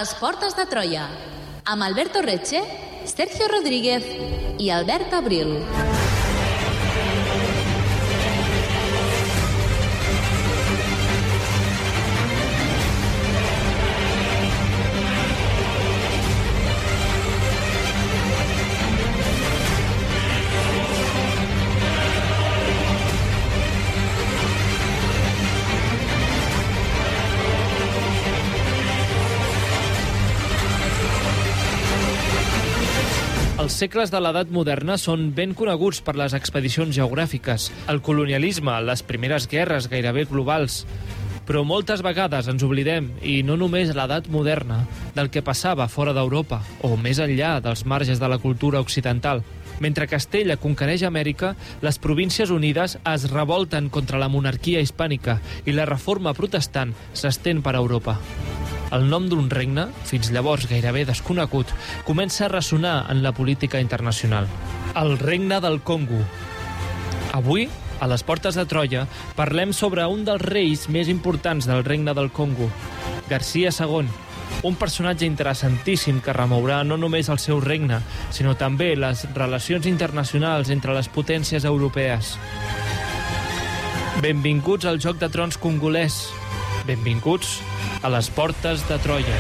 les portes de Troia, amb Alberto Reche, Sergio Rodríguez i Albert Abril. Els segles de l'edat moderna són ben coneguts per les expedicions geogràfiques, el colonialisme, les primeres guerres gairebé globals. Però moltes vegades ens oblidem, i no només l'edat moderna, del que passava fora d'Europa o més enllà dels marges de la cultura occidental. Mentre Castella conquereix Amèrica, les Províncies Unides es revolten contra la monarquia hispànica i la reforma protestant s'estén per Europa. El nom d'un regne, fins llavors gairebé desconegut, comença a ressonar en la política internacional. El Regne del Congo. Avui, a les portes de Troia, parlem sobre un dels reis més importants del Regne del Congo, Garcia II, un personatge interessantíssim que remourà no només el seu regne, sinó també les relacions internacionals entre les potències europees. Benvinguts al Joc de Trons congolès. Benvinguts a les portes de Troia.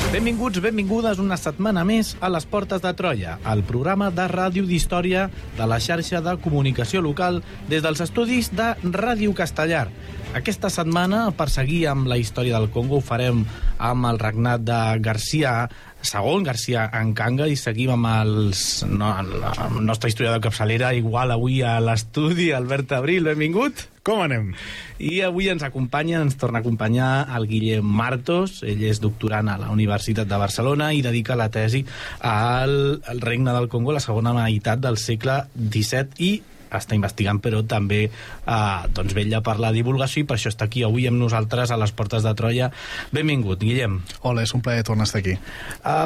Benvinguts, benvingudes una setmana més a les Portes de Troia, el programa de ràdio d'història de la xarxa de comunicació local des dels estudis de Ràdio Castellar. Aquesta setmana, per seguir amb la història del Congo, ho farem amb el regnat de Garcia II, Garcia Nkanga, i seguim amb la nostra història de capçalera, igual avui a l'estudi, Albert Abril, benvingut. Com anem? I avui ens torna a acompanyar el Guillem Martos. Ell és doctorant a la Universitat de Barcelona i dedica la tesi al Regne del Congo, la segona meitat del segle XVII, i està investigant, però també vetlla per la divulgació, i per això està aquí avui amb nosaltres a les Portes de Troia. Benvingut, Guillem. Hola, és un plaer tornar a estar aquí.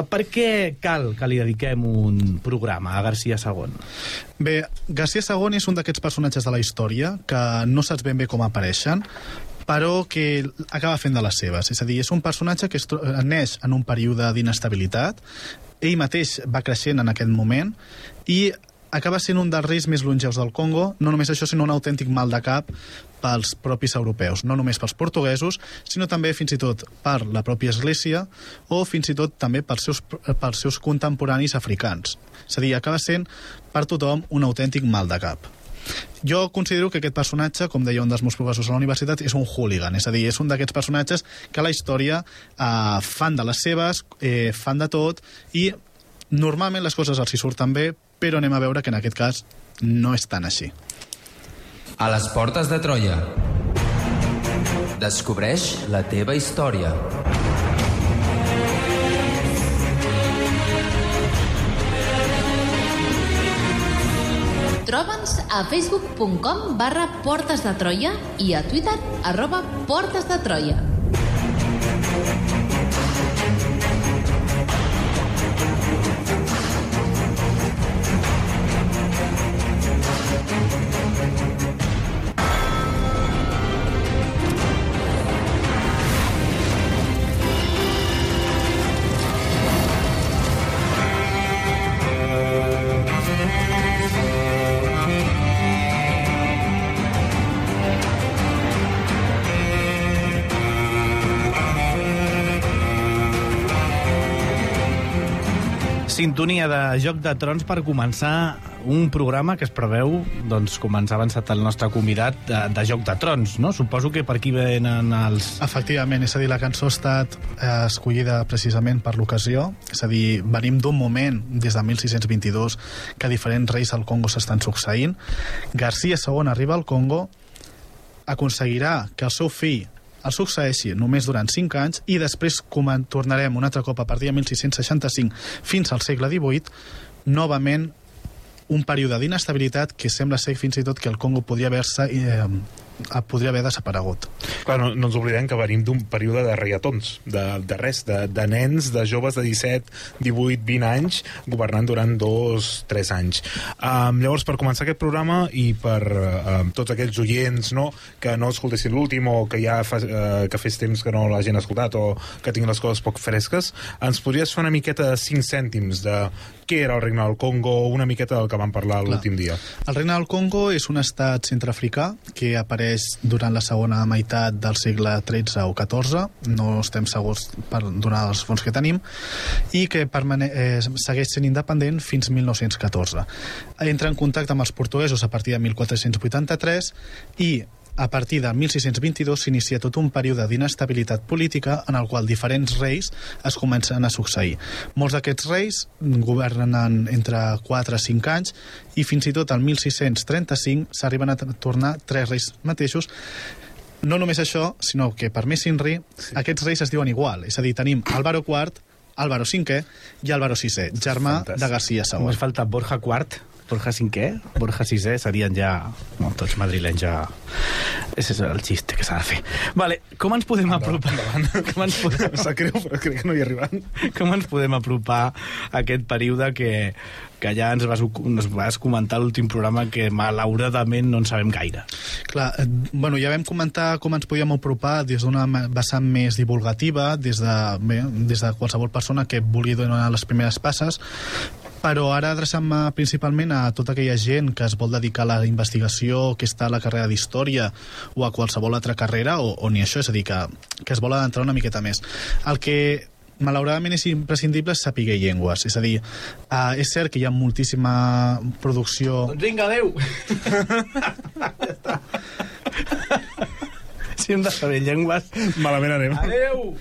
Per què cal que li dediquem un programa a Garcia II? Bé, Garcia II és un d'aquests personatges de la història que no saps ben bé com apareixen, però que acaba fent de les seves. És a dir, és un personatge que neix en un període d'inestabilitat, ell mateix va creixent en aquest moment, i acaba sent un dels reis més longeus del Congo, no només això, sinó un autèntic mal de cap pels propis europeus, no només pels portuguesos, sinó també fins i tot per la pròpia Església o fins i tot també pels seus contemporanis africans. És a dir, acaba sent per tothom un autèntic mal de cap. Jo considero que aquest personatge, com deia un dels meus professors a la universitat, és un hooligan, és a dir, és un d'aquests personatges que a la història fan de les seves, fan de tot, i normalment les coses els hi surten bé, però anem a veure que en aquest cas no és tan així. A les portes de Troia. Descobreix la teva història. Troba'ns a facebook.com/portesdetroia i a Twitter @portesdetroia. Sintonia de Joc de Trons per començar un programa que es preveu, doncs, com ens ha avançat el nostre convidat, de Joc de Trons, no? Suposo que per aquí venen els... Efectivament, és a dir, la cançó ha estat escollida precisament per l'ocasió, és a dir, venim d'un moment, des de 1622, que diferents reis al Congo s'estan succeint. Garcia II arriba al Congo, aconseguirà que el seu fill el succeeixi només durant 5 anys, i després tornarem un altre cop a partir de 1665 fins al segle XVIII, novament un període d'inestabilitat que sembla ser fins i tot que el Congo podria haver desaparegut. Clar, no ens oblidem que venim d'un període de reiatons, de nens, de joves de 17, 18, 20 anys, governant durant 2-3 anys. Llavors, per començar aquest programa i per tots aquells oients que no escoltessin l'últim o que ja que fes temps que no l'hagin escoltat o que tinguin les coses poc fresques, ens podries fer una miqueta de 5 cèntims de què era el Regne del Congo, una miqueta del que vam parlar l'últim dia? El Regne del Congo és un estat centreafricà que apareix durant la segona meitat del segle XIII o XIV, no estem segurs per donar els fons que tenim, i que segueix sent independent fins 1914. Entra en contacte amb els portuguesos a partir de 1483 i a partir de 1622 s'inicia tot un període d'inestabilitat política en el qual diferents reis es comencen a succeir. Molts d'aquests reis governen entre 4 a 5 anys i fins i tot al 1635 s'arriben a tornar 3 reis mateixos. No només això, sinó que per més s'inri, aquests reis es diuen igual. És a dir, tenim Álvaro IV, Álvaro V i Álvaro VI, germà de García II. Només falta Borja IV, Borja V, Borja VI serien ja tots madrilenys ja. Ese és el xiste que s'ha de fer. Vale, com ens podem apropar? Em sap greu, però crec que no hi arribant. Com ens podem apropar a aquest període que ja ens vas comentar a l'últim programa que malauradament no en sabem gaire? Clar, ja vam comentar com ens podíem apropar des d'una vessant més divulgativa, des de qualsevol persona que vulgui donar les primeres passes, però ara adreçant-me principalment a tota aquella gent que es vol dedicar a la investigació, que està a la carrera d'història o a qualsevol altra carrera, o ni això, és a dir, que es vol adentrar una miqueta més. El que malauradament és imprescindible és saber llengües, és a dir, és cert que hi ha moltíssima producció... Doncs vinga, adeu! Si hem de saber llengües... Malament anem. Adeu!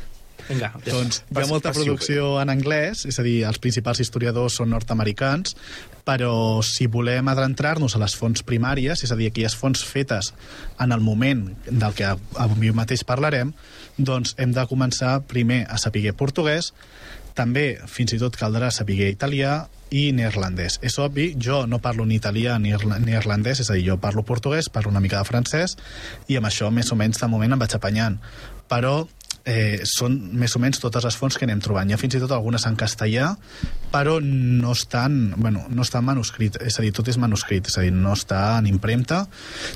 Vinga, doncs hi ha molta producció en anglès, és a dir, els principals historiadors són nord-americans, però si volem adentrar-nos a les fonts primàries, és a dir, aquelles fonts fetes en el moment del que avui mateix parlarem, doncs hem de començar primer a saber portuguès, també fins i tot caldrà saber italià i neerlandès. És obvi, jo no parlo ni italià ni neerlandès, és a dir, jo parlo portuguès, parlo una mica de francès, i amb això més o menys de moment em vaig apanyant. Però són més o menys totes les fonts que anem trobant. Hi ha fins i tot algunes en castellà, però no estan manuscrit, és a dir, tot és manuscrit, és a dir, no està en impremta,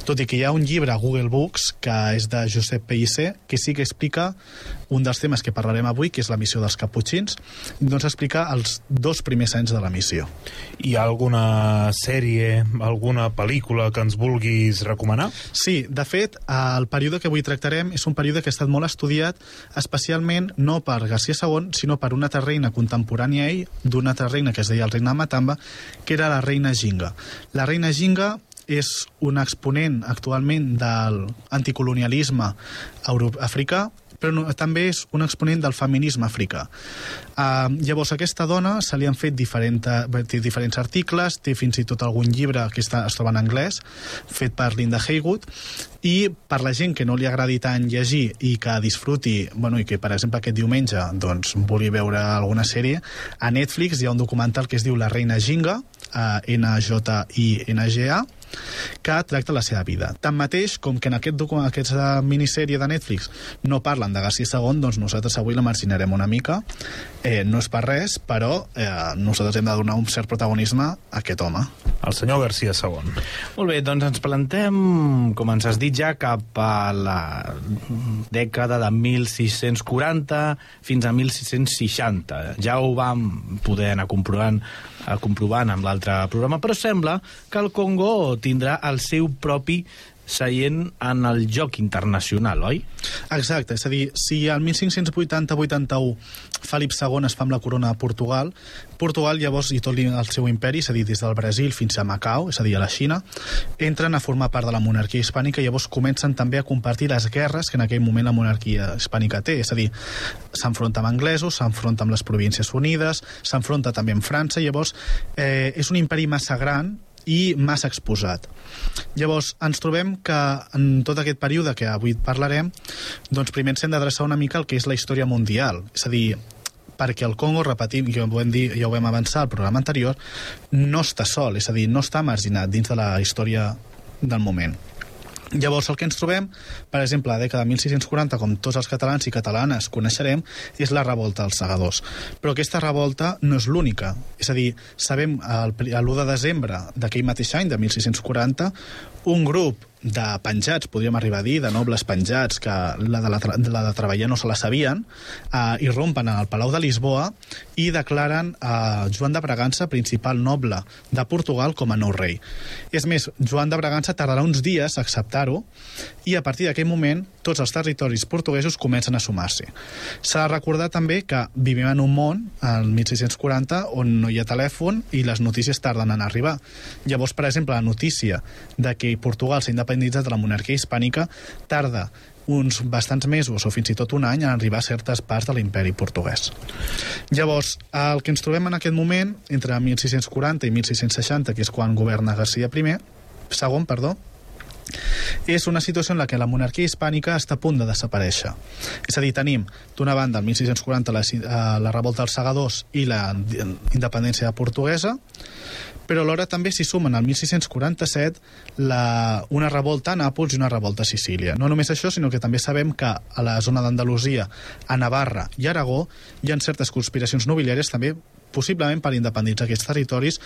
tot i que hi ha un llibre a Google Books que és de Josep Pellicer, que sí que explica un dels temes que parlarem avui, que és la missió dels caputxins, doncs explica els 2 primers anys de la missió. Hi ha alguna sèrie, alguna pel·lícula que ens vulguis recomanar? Sí, de fet, el període que avui tractarem és un període que ha estat molt estudiat, especialment no per García II, sinó per una altra reina contemporània a ell, d'una altra reina que es deia el reina de Matamba, que era la reina Ginga. La reina Ginga és un exponent actualment de l'anticolonialisme africà, però també és un exponent del feminisme africà. Llavors, a aquesta dona se li han fet diferents articles, té fins i tot algun llibre que es troba en anglès, fet per Linda Haywood, i per la gent que no li agradi tant llegir i que disfruti, i que, per exemple, aquest diumenge vulgui veure alguna sèrie, a Netflix hi ha un documental que es diu La reina Ginga, N-J-I-N-G-A, que tracta la seva vida. Tanmateix, com que en aquesta minissèrie de Netflix no parlen de García II, doncs nosaltres avui la marginarem una mica. No és per res, però nosaltres hem de donar un cert protagonisme a aquest home. El senyor García II. Molt bé, doncs ens plantem, com ens has dit ja, cap a la dècada de 1640 fins a 1660. Ja ho vam poder anar comprovant amb l'altre programa, però sembla que el Congo tindrà el seu propi seient en el joc internacional, oi? Exacte, és a dir, si al 1580-81 Felip II es fa amb la corona de Portugal, Portugal llavors i tot el seu imperi, és a dir, des del Brasil fins a Macau, és a dir, a la Xina, entren a formar part de la monarquia hispànica i llavors comencen també a compartir les guerres que en aquell moment la monarquia hispànica té, és a dir, s'enfronta amb anglesos, s'enfronta amb les Províncies Unides, s'enfronta també amb França, llavors és un imperi massa gran i massa exposat. Llavors, ens trobem que en tot aquest període que avui parlarem, doncs primer ens hem d'adreçar una mica al que és la història mundial. És a dir, perquè el Congo, repetim, ja ho vam avançar al programa anterior, no està sol, és a dir, no està marginat dins de la història del moment. Llavors, el que ens trobem, per exemple, a la dècada de 1640, com tots els catalans i catalanes coneixerem, és la revolta dels segadors. Però aquesta revolta no és l'única. És a dir, sabem, l'1 de desembre d'aquell mateix any, de 1640, un grup de penjats, podríem arribar a dir, de nobles penjats, que la de treballar no se la sabien, irrompen al Palau de Lisboa i declaren Joan de Bragança, principal noble de Portugal, com a nou rei. És més, Joan de Bragança tardarà uns dies a acceptar-ho i a partir d'aquell moment tots els territoris portuguesos comencen a sumar-s'hi. S'ha de recordar també que vivim en un món, el 1640, on no hi ha telèfon i les notícies tarden en arribar. Llavors, per exemple, la notícia de que Portugal s'ha independitzat de la monarquia hispànica tarda uns bastants mesos o fins i tot un any en arribar a certes parts de l'imperi portuguès. Llavors, el que ens trobem en aquest moment, entre 1640 i 1660, que és quan governa Garcia II, és una situació en la que la monarquia hispànica està a punt de desaparèixer. És a dir, tenim, d'una banda, el 1640 la revolta dels segadors i la independència portuguesa, però alhora també s'hi sumen al 1647 una revolta a Nàpols i una revolta a Sicília. No només això, sinó que també sabem que a la zona d'Andalusia, a Navarra i Aragó hi ha certes conspiracions nobiliàries també possiblement per independitzar aquests territoris.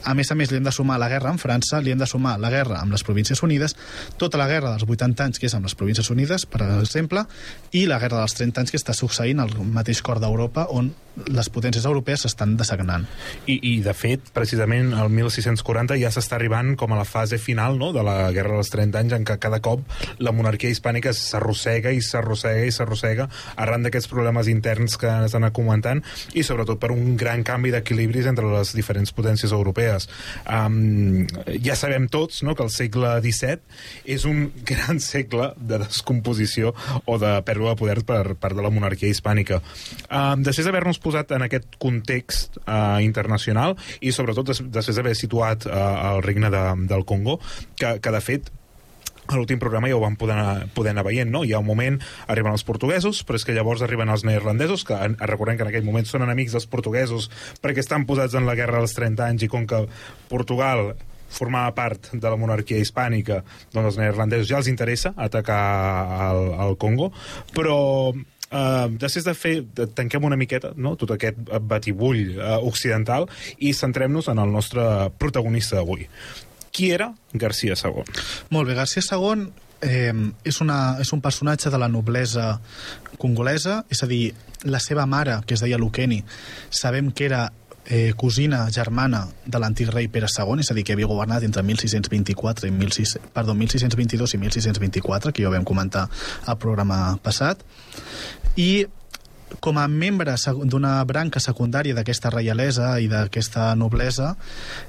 A més, li hem de sumar la guerra amb França, li hem de sumar la guerra amb les Províncies Unides, tota la guerra dels 80 anys que és amb les Províncies Unides, per exemple, i la guerra dels 30 anys que està succeint al mateix cor d'Europa, on les potències europees s'estan dessagnant. I de fet, precisament, el 1640 ja s'està arribant com a la fase final, no?, de la guerra dels 30 anys, en què cada cop la monarquia hispànica s'arrossega i s'arrossega i s'arrossega arran d'aquests problemes interns que ens han anat comentant i sobretot per un gran canvi d'equilibris entre les diferents potències europees. Ja sabem tots, no?, que el segle XVII és un gran segle de descomposició o de pèrdua de poder per part de la monarquia hispànica. Després d'haver-nos posat en aquest context internacional i sobretot després d'haver situat el regne del Congo, que de fet a l'últim programa ja ho vam poder anar veient, no? Hi ha un moment, arriben els portuguesos, però és que llavors arriben els neerlandesos, que recordem que en aquell moment són enemics dels portuguesos perquè estan posats en la guerra dels 30 anys i com que Portugal formava part de la monarquia hispànica, doncs els neerlandesos ja els interessa atacar el Congo, però després tanquem una miqueta, no?, tot aquest batibull occidental i centrem-nos en el nostre protagonista d'avui. Qui era Garcia II? Molt bé, Garcia II és un personatge de la noblesa congolesa, és a dir, la seva mare, que es deia Lukeni, sabem que era cosina germana de l'antic rei Pere II, és a dir, que havia governat entre 1622 i 1624, que ja ho vam comentar al programa passat, i com a membre d'una branca secundària d'aquesta reialesa i d'aquesta noblesa,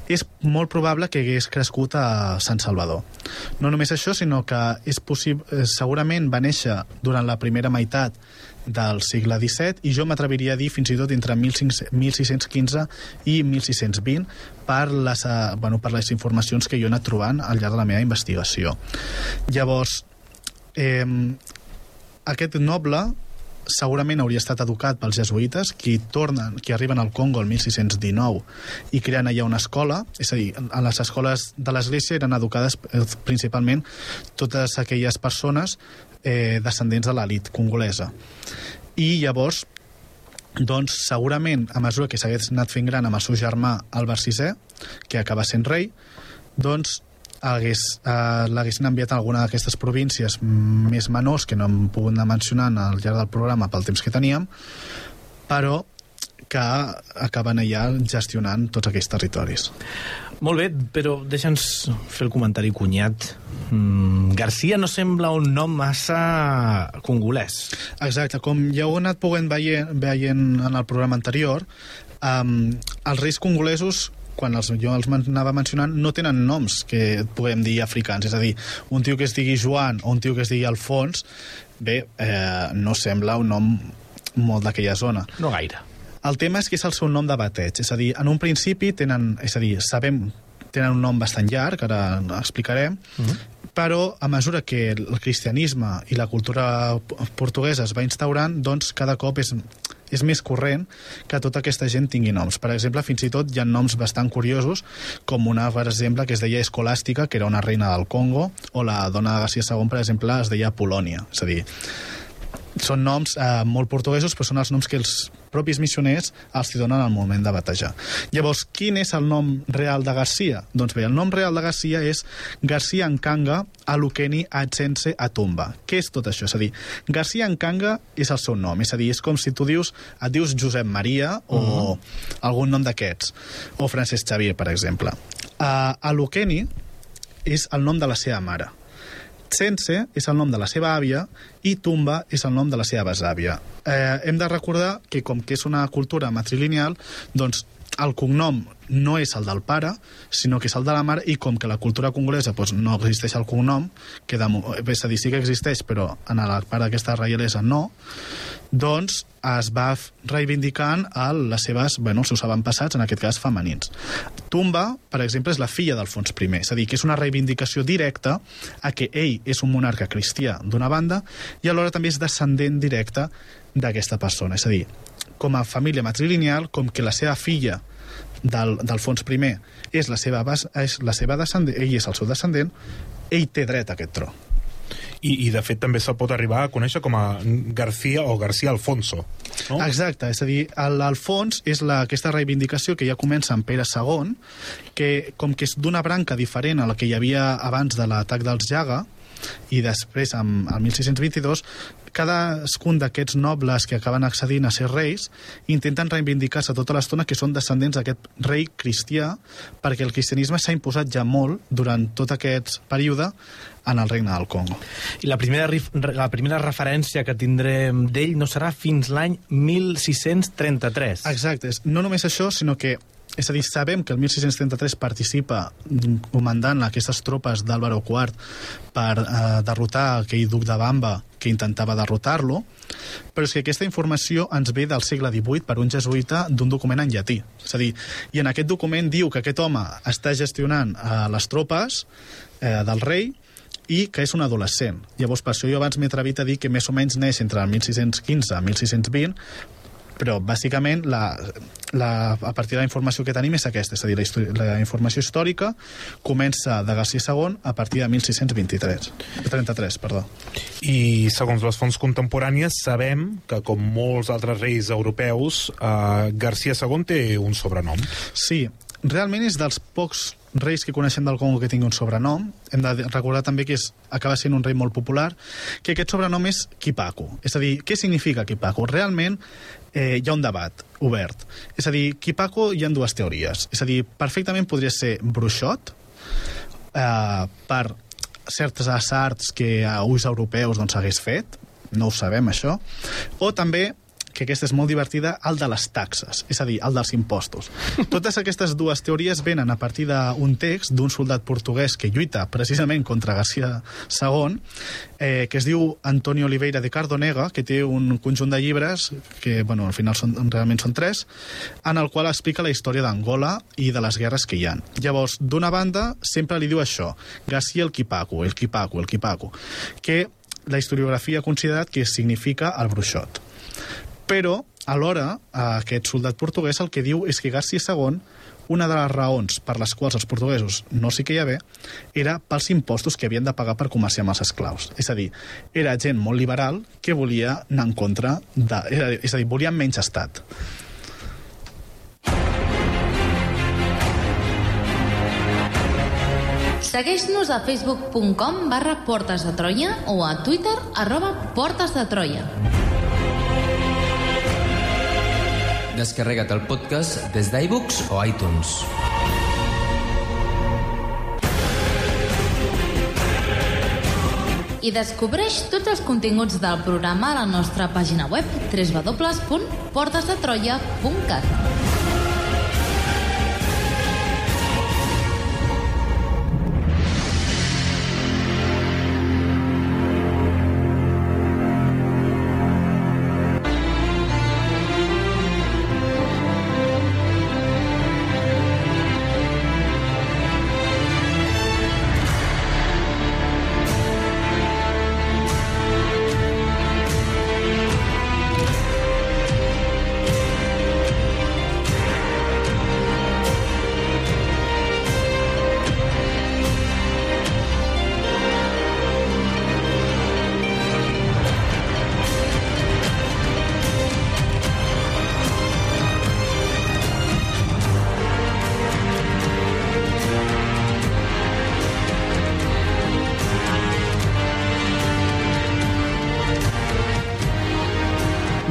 és molt probable que hagués crescut a Sant Salvador. No només això, sinó que segurament va néixer durant la primera meitat del segle XVII i jo m'atreviria a dir fins i tot entre 1615 i 1620 per les informacions que jo he anat trobant al llarg de la meva investigació. Llavors, aquest noble segurament hauria estat educat pels jesuïtes, que arriben al Congo el 1619 i creen allà una escola, és a dir, a les escoles de l'església eren educades principalment totes aquelles persones descendents de l'elit congolesa. I llavors, doncs, segurament, a mesura que s'hagués anat fent gran amb el seu germà Albert VI, que acaba sent rei, doncs l'haguessin enviat a alguna d'aquestes províncies més menors que no hem pogut anar mencionant al llarg del programa pel temps que teníem, però que acaben allà gestionant tots aquells territoris. Molt bé, però deixa'ns fer el comentari cunyat. Garcia no sembla un nom massa congolès. Exacte, com ja ho he anat poguent veient en el programa anterior, els reis congolesos, quan jo els anava mencionant, no tenen noms que puguem dir africans, és a dir, un tio que es digui Joan o un tio que es digui Alfons, no sembla un nom molt d'aquella zona. No gaire. El tema és que és el seu nom de bateig, és a dir, en un principi tenen un nom bastant llarg, ara explicarem, però a mesura que el cristianisme i la cultura portuguesa es va instaurant, doncs cada cop és és més corrent que tota aquesta gent tingui noms. Per exemple, fins i tot hi ha noms bastant curiosos, com una, per exemple, que es deia Escolàstica, que era una reina del Congo, o la dona de Garcia II, per exemple, es deia Polònia. És a dir, són noms molt portuguesos, però són els noms que els propis missioners els hi donen al moment de batejar. Llavors, quin és el nom real de Garcia? Doncs bé, el nom real de Garcia és Garcia Nkanga Alukeni Atsense Atumba. Què és tot això? És a dir, Garcia Nkanga és el seu nom, és a dir, és com si tu et dius Josep Maria o algun nom d'aquests, o Francesc Xavier, per exemple. Alukeni és el nom de la seva mare. Tsense és el nom de la seva àvia i Tumba és el nom de la seva besàvia. Hem de recordar que, com que és una cultura matrilineal, doncs el cognom no és el del pare, sinó que és el de la mare, i com que la cultura congolesa doncs, no existeix el cognom, que és a dir, sí que existeix, però en la part d'aquesta reialesa no, doncs es va reivindicant les seves, els seus avantpassats, en aquest cas femenins. Tumba, per exemple, és la filla d'Alfons I, és a dir, que és una reivindicació directa a que ell és un monarca cristià d'una banda i alhora també és descendent directe d'aquesta persona. És a dir, com a família matrilineal, com que la seva filla d'Alfons I és la seva descendent, ell és el seu descendent, ell té dret a aquest tro. I de fet també se'l pot arribar a conèixer com a García o García Alfonso, no? Exacte, és a dir, l'Alfons és aquesta reivindicació que ja comença amb Pere II, que com que és d'una branca diferent a la que hi havia abans de l'atac dels Jaga, i després, el 1622, cadascun d'aquests nobles que acaben accedint a ser reis intenten reivindicar-se tota l'estona que són descendents d'aquest rei cristià, perquè el cristianisme s'ha imposat ja molt durant tot aquest període en el regne del Congo. I la primera referència que tindrem d'ell no serà fins l'any 1633. Exacte, no només això, sinó que és a dir, sabem que el 1633 participa comandant aquestes tropes d'Àlvaro IV per derrotar aquell duc de Bamba que intentava derrotar-lo, però és que aquesta informació ens ve del segle XVIII per un jesuïta d'un document en llatí. És a dir, i en aquest document diu que aquest home està gestionant les tropes del rei i que és un adolescent. Llavors, per això jo abans m'he atrevit a dir que més o menys neix entre el 1615 i 1620, però bàsicament a partir de la informació que tenim és aquesta, és a dir, la informació històrica comença de Garcia II a partir de 1633. I segons les fonts contemporànies sabem que, com molts altres reis europeus, Garcia II té un sobrenom. Sí, realment és dels pocs reis que coneixem del Congo que tingui un sobrenom. Hem de recordar també que acaba sent un rei molt popular, que aquest sobrenom és Kipaku. És a dir, què significa Kipaku? Realment hi ha un debat obert. És a dir, Kipaku hi ha dues teories. És a dir, perfectament podria ser bruixot, per certes arts que a ulls europeus hagués fet, no ho sabem això, o també, que aquesta és molt divertida, el de les taxes, és a dir, el dels impostos. Totes aquestes dues teories venen a partir d'un text d'un soldat portuguès que lluita precisament contra Garcia II, que es diu Antonio Oliveira de Cardonega, que té un conjunt de llibres, que al final realment són 3, en el qual explica la història d'Angola i de les guerres que hi ha. Llavors, d'una banda, sempre li diu això, Garcia el Kipaku, que la historiografia ha considerat que significa el bruixot. Però, alhora, aquest soldat portuguès el que diu és que Garcia II, una de les raons per les quals els portuguesos no s'hi queia bé, era pels impostos que havien de pagar per comerciar amb els esclaus. És a dir, era gent molt liberal que volia anar en contra és a dir, volien menys estat. Segueix-nos a facebook.com/Portes de Troia o a Twitter @PortesDeTroia. Descarrega't el podcast des d'iVoox o iTunes. I descobreix tots els continguts del programa a la nostra pàgina web www.portesdetroia.cat.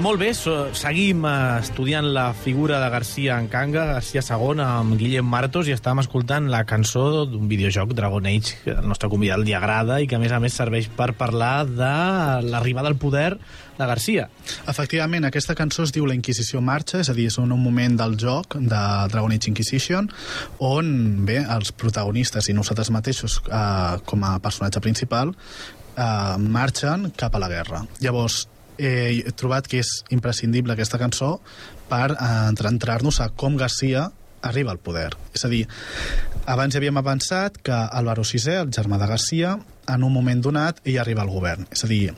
Molt bé, seguim estudiant la figura de García Encanga, García II, amb Guillem Martos, i estàvem escoltant la cançó d'un videojoc, Dragon Age, que al nostre convidat li agrada i que, a més, serveix per parlar de l'arribada al poder de García. Efectivament, aquesta cançó es diu La Inquisició marxa, és a dir, és un moment del joc de Dragon Age Inquisition, on, bé, els protagonistes i nosaltres mateixos, com a personatge principal, marxen cap a la guerra. Llavors, he trobat que és imprescindible aquesta cançó per entrar-nos a com García arriba al poder. És a dir, abans havíem avançat que Álvaro VI, el germà de García, en un moment donat, ell arriba al govern. És a dir,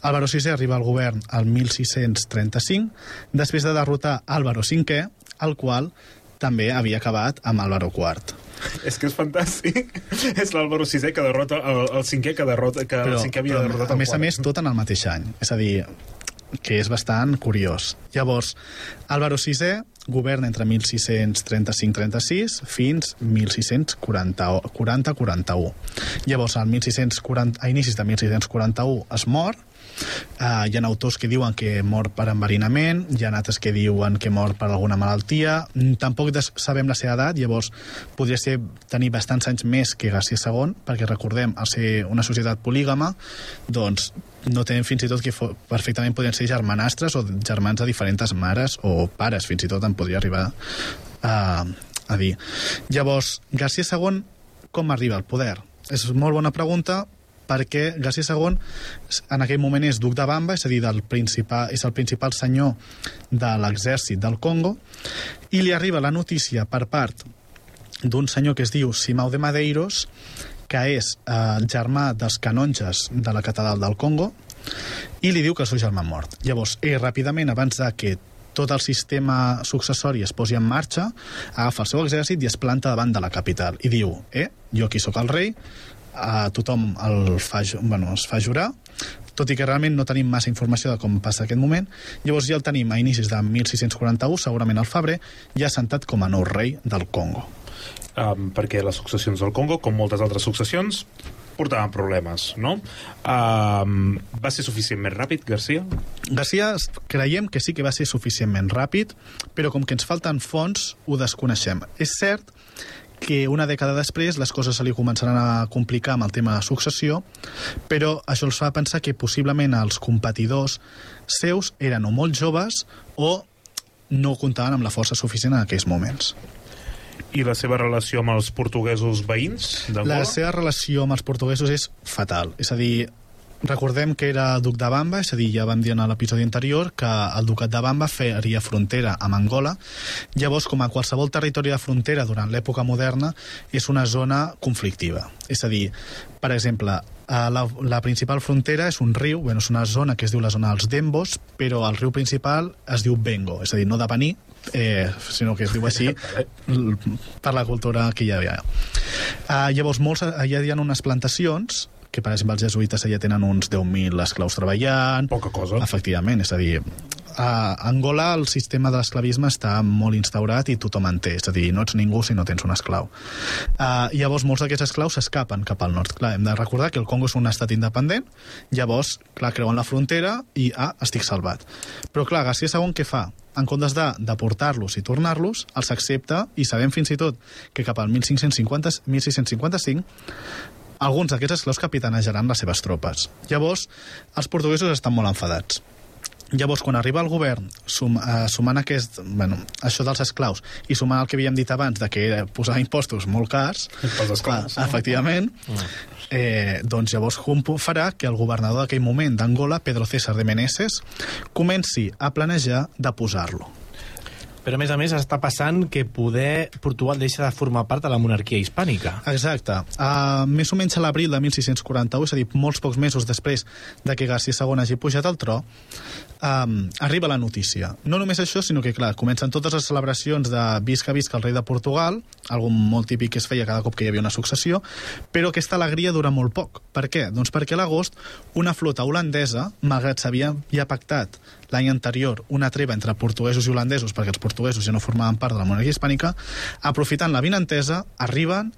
Álvaro VI arriba al govern el 1635, després de derrotar Álvaro V, el qual també havia acabat amb Álvaro IV. És que és fantàstic. És l'Álvaro VI que derrota el cinquè que el cinquè havia derrotat el a més, tot en el mateix any. És a dir, que és bastant curiós. Llavors, Álvaro VI governa entre 1635-36 fins 1640-41. Llavors, a inicis de 1641 es mor. Hi ha autors que diuen que mor per enverinament, hi ha altres que diuen que mor per alguna malaltia. Tampoc sabem la seva edat, llavors podria tenir bastants anys més que García II, perquè recordem, al ser una societat polígama, doncs no tenen fins i tot que perfectament podrien ser germanastres o germans de diferents mares o pares, fins i tot en podria arribar a dir. Llavors, García II com arriba al poder? És molt bona pregunta, perquè García II en aquell moment és duc de Bamba, és a dir, és el principal senyor de l'exèrcit del Congo, i li arriba la notícia per part d'un senyor que es diu Simão de Madeiros, que és germà dels canonges de la catedral del Congo, i li diu que el seu germà ha mort. Llavors, ell ràpidament, abans de que tot el sistema successori es posi en marxa, agafa el seu exèrcit i es planta davant de la capital i diu, jo aquí sóc el rei, a tothom es fa jurar, tot i que realment no tenim massa informació de com passa aquest moment. Llavors ja el tenim a inicis de 1641, segurament al febrer, ja assentat com a nou rei del Congo. Perquè les successions del Congo, com moltes altres successions, portaven problemes, no? Va ser suficientment ràpid, García? García creiem que sí que va ser suficientment ràpid, però com que ens falten fonts, ho desconeixem. És cert que una dècada després les coses se li començaran a complicar amb el tema de successió, però això els fa pensar que possiblement els competidors seus eren o molt joves o no comptaven amb la força suficient en aquells moments. I la seva relació amb els portuguesos veïns d'Angola? La seva relació amb els portuguesos és fatal. És a dir, recordem que era duc de Bamba, és a dir, ja vam dir en l'episodi anterior que el ducat de Bamba faria frontera amb Angola. Llavors, com a qualsevol territori de frontera durant l'època moderna, és una zona conflictiva. És a dir, per exemple, la principal frontera és un riu, és una zona que es diu la zona dels Dembos, però el riu principal es diu Bengo, és a dir, no de Bení, sinó que es diu així per la cultura que hi havia. Llavors, allà hi ha unes plantacions que, per exemple, els jesuïtes allà tenen uns 10.000 esclaus treballant. Poca cosa. Efectivament, és a dir, a Angola el sistema de l'esclavisme està molt instaurat i tothom en té, és a dir, no ets ningú si no tens un esclau. Llavors, molts d'aquests esclaus s'escapen cap al nord. Clar, hem de recordar que el Congo és un estat independent, llavors, clar, creuen la frontera i, estic salvat. Però, clar, García II què fa? En comptes de deportar-los i tornar-los, els accepta, i sabem fins i tot que cap al 1655 alguns d'aquests esclaus capitanejaran les seves tropes. Llavors, els portuguesos estan molt enfadats. Llavors, quan arriba el govern, sumant això dels esclaus i sumant el que havíem dit abans de que posava impostos molt cars, pels esclaus, efectivament, doncs llavors farà que el governador d'aquell moment d'Angola, Pedro César de Meneses, comenci a planejar de posar-lo. Però, a més, està passant que poder Portugal deixa de formar part de la monarquia hispànica. Exacte. Més o menys a l'abril de 1641, és a dir, molts pocs mesos després de que García II hagi pujat al tro, arriba la notícia. No només això, sinó que, clar, comencen totes les celebracions de visca el rei de Portugal, algo molt típic que es feia cada cop que hi havia una successió, però aquesta alegria dura molt poc. Per què? Doncs perquè a l'agost una flota holandesa, malgrat s'havia ja pactat l'any anterior una treva entre portuguesos i holandesos, perquè els portuguesos ja no formaven part de la monarquia hispànica, aprofitant la vinentesa, arriben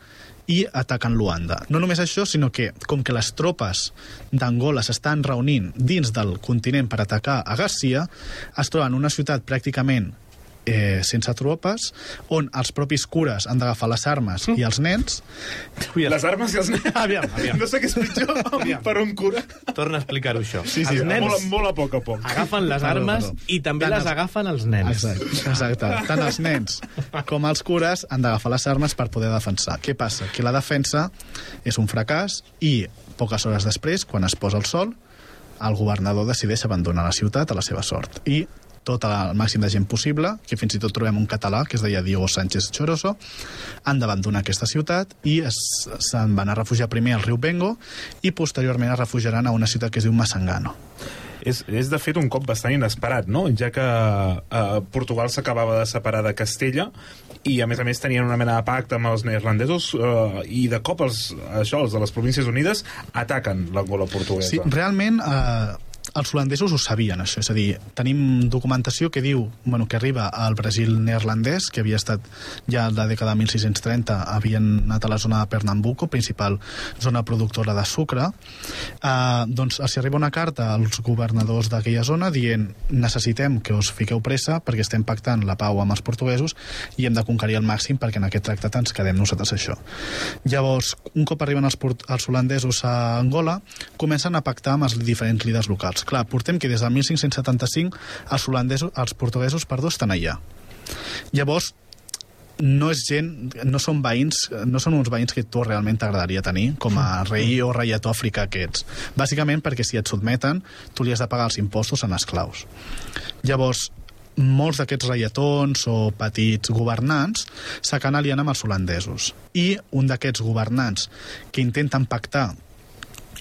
i ataquen Luanda. No només això, sinó que, com que les tropes d'Angola s'estan reunint dins del continent per atacar a Garcia, es troben en una ciutat pràcticament sense tropes, on els propis cures han d'agafar les armes i els nens. Les armes i els nens? Aviam. No sé què és pitjor per un cura. Torna a explicar-ho, això. Sí, els nens molt a poc a poc. agafen les armes i també les agafen els nens. Exacte. Tant els nens com els cures han d'agafar les armes per poder defensar. Què passa? Que la defensa és un fracàs i poques hores després, quan es posa el sol, el governador decideix abandonar la ciutat a la seva sort. I tot el màxim de gent possible, que fins i tot trobem un català que es deia Diego Sánchez Choroso, han d'abandonar aquesta ciutat i se'n van a refugiar primer al riu Bengo i posteriorment es refugiaran a una ciutat que es diu Massangano. És de fet un cop bastant inesperat, no? Ja que Portugal s'acabava de separar de Castella i a més tenien una mena de pacte amb els neerlandesos i de cop els de les Províncies Unides ataquen l'Angola portuguesa. Sí, realment els holandesos ho sabien, això. És a dir, tenim documentació que diu que arriba al Brasil neerlandès, que havia estat ja a la dècada de 1630, havien anat a la zona de Pernambuco, principal zona productora de sucre. Doncs els arriba una carta als governadors d'aquella zona dient necessitem que us fiqueu pressa perquè estem pactant la pau amb els portuguesos i hem de conquerir al màxim perquè en aquest tractat ens quedem nosaltres això. Llavors, un cop arriben els holandesos a Angola, comencen a pactar amb els diferents líders locals. Clar, portem que des del 1575 els portuguesos estan allà. Llavors, no són uns veïns que tu realment t'agradaria tenir com a rei o reietó africà que ets. Bàsicament perquè si et sotmeten, tu li has de pagar els impostos en esclaus. Llavors, molts d'aquests reietons o petits governants s'acaben aliant amb els holandesos. I un d'aquests governants que intenten pactar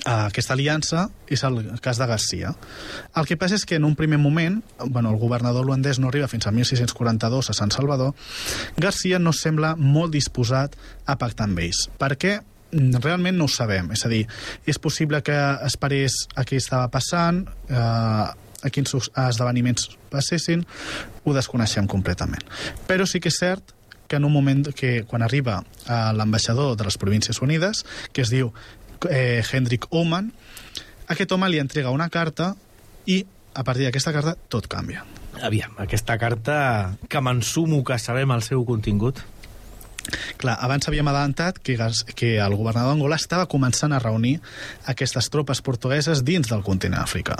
aquesta aliança és el cas de Garcia. El que passa és que en un primer moment, el governador holandès no arriba fins a 1642 a Sant Salvador, Garcia no sembla molt disposat a pactar amb ells. Per què? Realment no ho sabem. És a dir, és possible que esperés a què estava passant, a quins esdeveniments passessin, ho desconeixem completament. Però sí que és cert que en un moment que quan arriba l'ambaixador de les Províncies Unides, que es diu Hendrik Ouman, aquest home li entrega una carta i a partir d'aquesta carta tot canvia. Aviam, aquesta carta que m'ensumo que sabem el seu contingut. Clar, abans havíem adelantat que el governador d'Angola estava començant a reunir aquestes tropes portugueses dins del continent africà.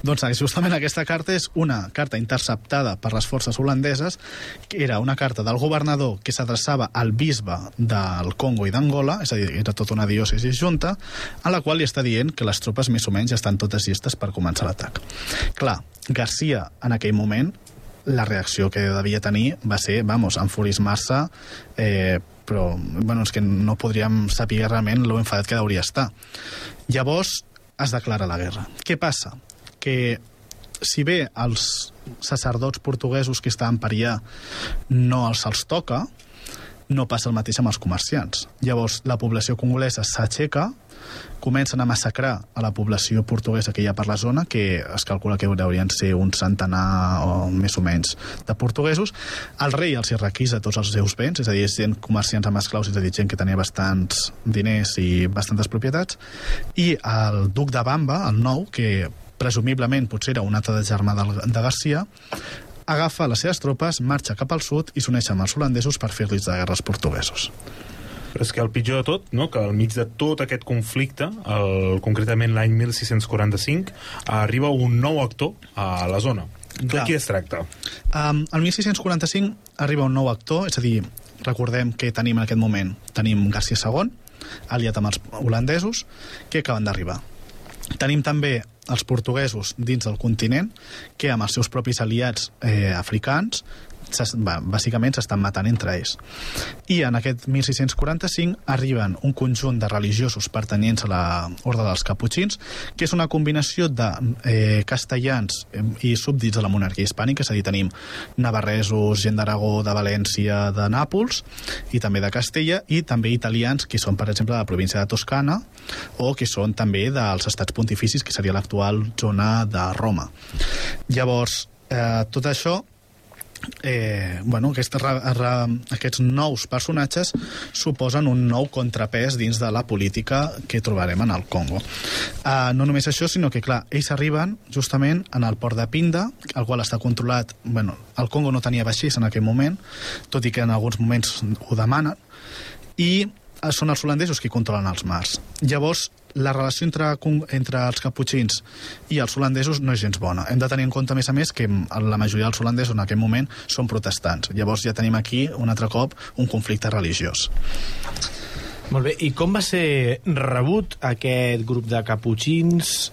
Doncs justament aquesta carta és una carta interceptada per les forces holandeses, que era una carta del governador que s'adreçava al bisbe del Congo i d'Angola, és a dir, era tota una diòcesi junta, a la qual li està dient que les tropes més o menys estan totes llistes per començar l'atac. Clar, Garcia en aquell moment la reacció que devia tenir va ser, enfurismar-se, però és que no podríem saber realment lo enfadat que hauria estar. Llavors es declara la guerra. Què passa? Que si bé els sacerdots portuguesos que estaven per allà no els toca, no passa el mateix amb els comerciants. Llavors la població congolesa s'aixeca, comencen a massacrar a la població portuguesa que hi ha per la zona, que es calcula que haurien ser un centenar o més o menys de portuguesos. El rei els requisa tots els seus béns, és a dir, gent comerciants amb esclaus, és a dir, gent que tenia bastants diners i bastantes propietats, i el duc de Bamba, el nou, que presumiblement potser era un altre de germà de Garcia, agafa les seves tropes, marxa cap al sud i s'uneix amb els holandesos per fer-los de guerra als portuguesos. Però és que el pitjor de tot, no? Que al mig de tot aquest conflicte, concretament l'any 1645, arriba un nou actor a la zona. De qui es tracta? El 1645 arriba un nou actor, és a dir, recordem que tenim en aquest moment Garcia II, aliat amb els holandesos, que acaben d'arribar. Tenim també els portuguesos dins del continent, que amb els seus propis aliats africans bàsicament s'estan matant entre ells. I en aquest 1645 arriben un conjunt de religiosos pertanyents a l'ordre dels caputxins, que és una combinació de castellans i súbdits de la monarquia hispànica, és a dir, tenim navarresos, gent d'Aragó, de València, de Nàpols, i també de Castella, i també italians, que són, per exemple, de la província de Toscana, o que són també dels estats pontificis, que seria l'actual zona de Roma. Llavors, tot això aquests nous personatges suposen un nou contrapès dins de la política que trobarem en el Congo. No només això, sinó que, clar, ells arriben justament en el port de Pinda, el qual està controlat... Bueno, el Congo no tenia vaixells en aquell moment, tot i que en alguns moments ho demanen, i són els holandesos qui controlen els mars. Llavors, la relació entre els caputxins i els holandesos no és gens bona. Hem de tenir en compte, a més, que la majoria dels holandesos en aquest moment són protestants. Llavors ja tenim aquí, un altre cop, un conflicte religiós. Molt bé, i com va ser rebut aquest grup de caputxins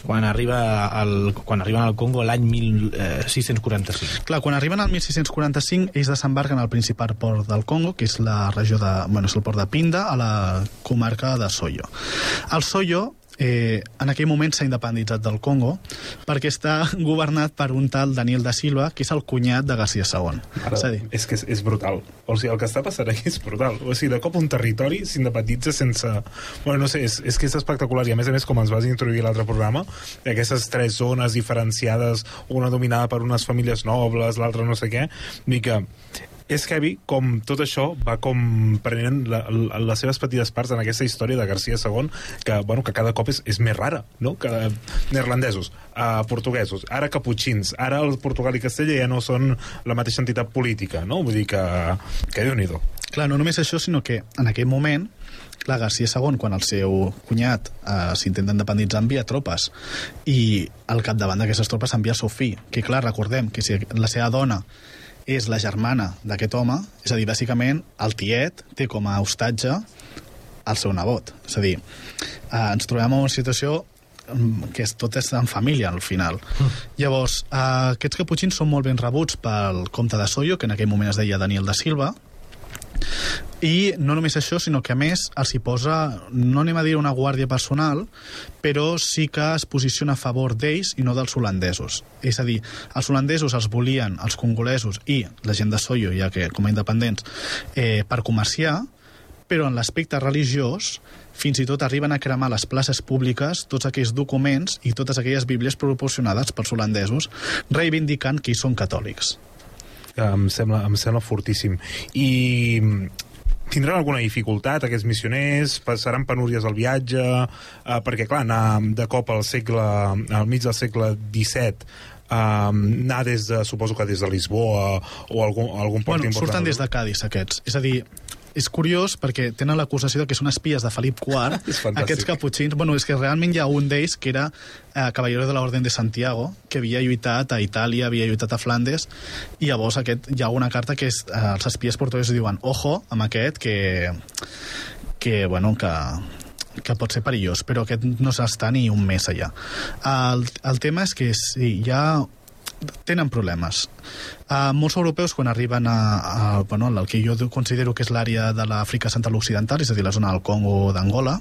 quan arriben al Congo l'any 1645? Clar, quan arriben al 1645, ells desembarquen al principal port del Congo, que és la regió és el port de Pinda, a la comarca de Soyo. El Soyo, en aquell moment s'ha independitzat del Congo perquè està governat per un tal Daniel da Silva, que és el cunyat de García II. És que és brutal. O sigui, el que està passant aquí és brutal. O sigui, de cop un territori s'independitza sense... Bueno, no sé, és que és espectacular. I a més, com ens vas introduir a l'altre programa, aquestes tres zones diferenciades, una dominada per unes famílies nobles, l'altra no sé què, i que és heavy com tot això va com prenent les seves petites parts en aquesta història de García II, que cada cop és més rara, no? Que neerlandesos, portuguesos, ara caputxins, ara el Portugal i Castella ja no són la mateixa entitat política, no? Vull dir que Déu-n'hi-do. Clar, no només això, sinó que en aquell moment clar, García II, quan el seu cunyat s'intenta independitzar, envia tropes, i al capdavant d'aquestes tropes envia el seu fill, que clar, recordem que si la seva dona és la germana d'aquest home, és a dir, bàsicament el tiet té com a hostatge el seu nebot. És a dir, ens trobem en una situació que tot és en família al final. Llavors, aquests caputxins són molt ben rebuts pel comte de Soyo, que en aquell moment es deia Daniel da Silva, i no només això, sinó que a més els hi posa, no anem a dir una guàrdia personal, però sí que es posiciona a favor d'ells i no dels holandesos. És a dir, els holandesos els volien, els congolesos i la gent de Soyo, ja que com a independents, per comerciar, però en l'aspecte religiós fins i tot arriben a cremar a les places públiques tots aquells documents i totes aquelles bíblies proporcionades pels holandesos, reivindicant que ells són catòlics. Em sembla fortíssim. I tindran alguna dificultat aquests missioners? Passaran penúries al viatge? Perquè, clar, anar de cop al mig del segle XVII, anar suposo que des de Lisboa o algun port important. Surten des de Cádiz, aquests. És a dir, és curiós perquè tenen l'acusació de que són espies de Felip IV, aquests caputxins. Bueno, és que realment hi ha un d'ells que era Caballero de la Orden de Santiago, que havia lluitat a Itàlia, havia lluitat a Flandes, i llavors hi ha una carta que els espies portuguesos diuen ojo amb aquest que pot ser perillós, però aquest no s'està ni un mes allà. El tema és que sí, ja tenen problemes. Molts europeus, quan arriben al que jo considero que és l'àrea de l'Àfrica Central Occidental, és a dir, la zona del Congo o d'Angola,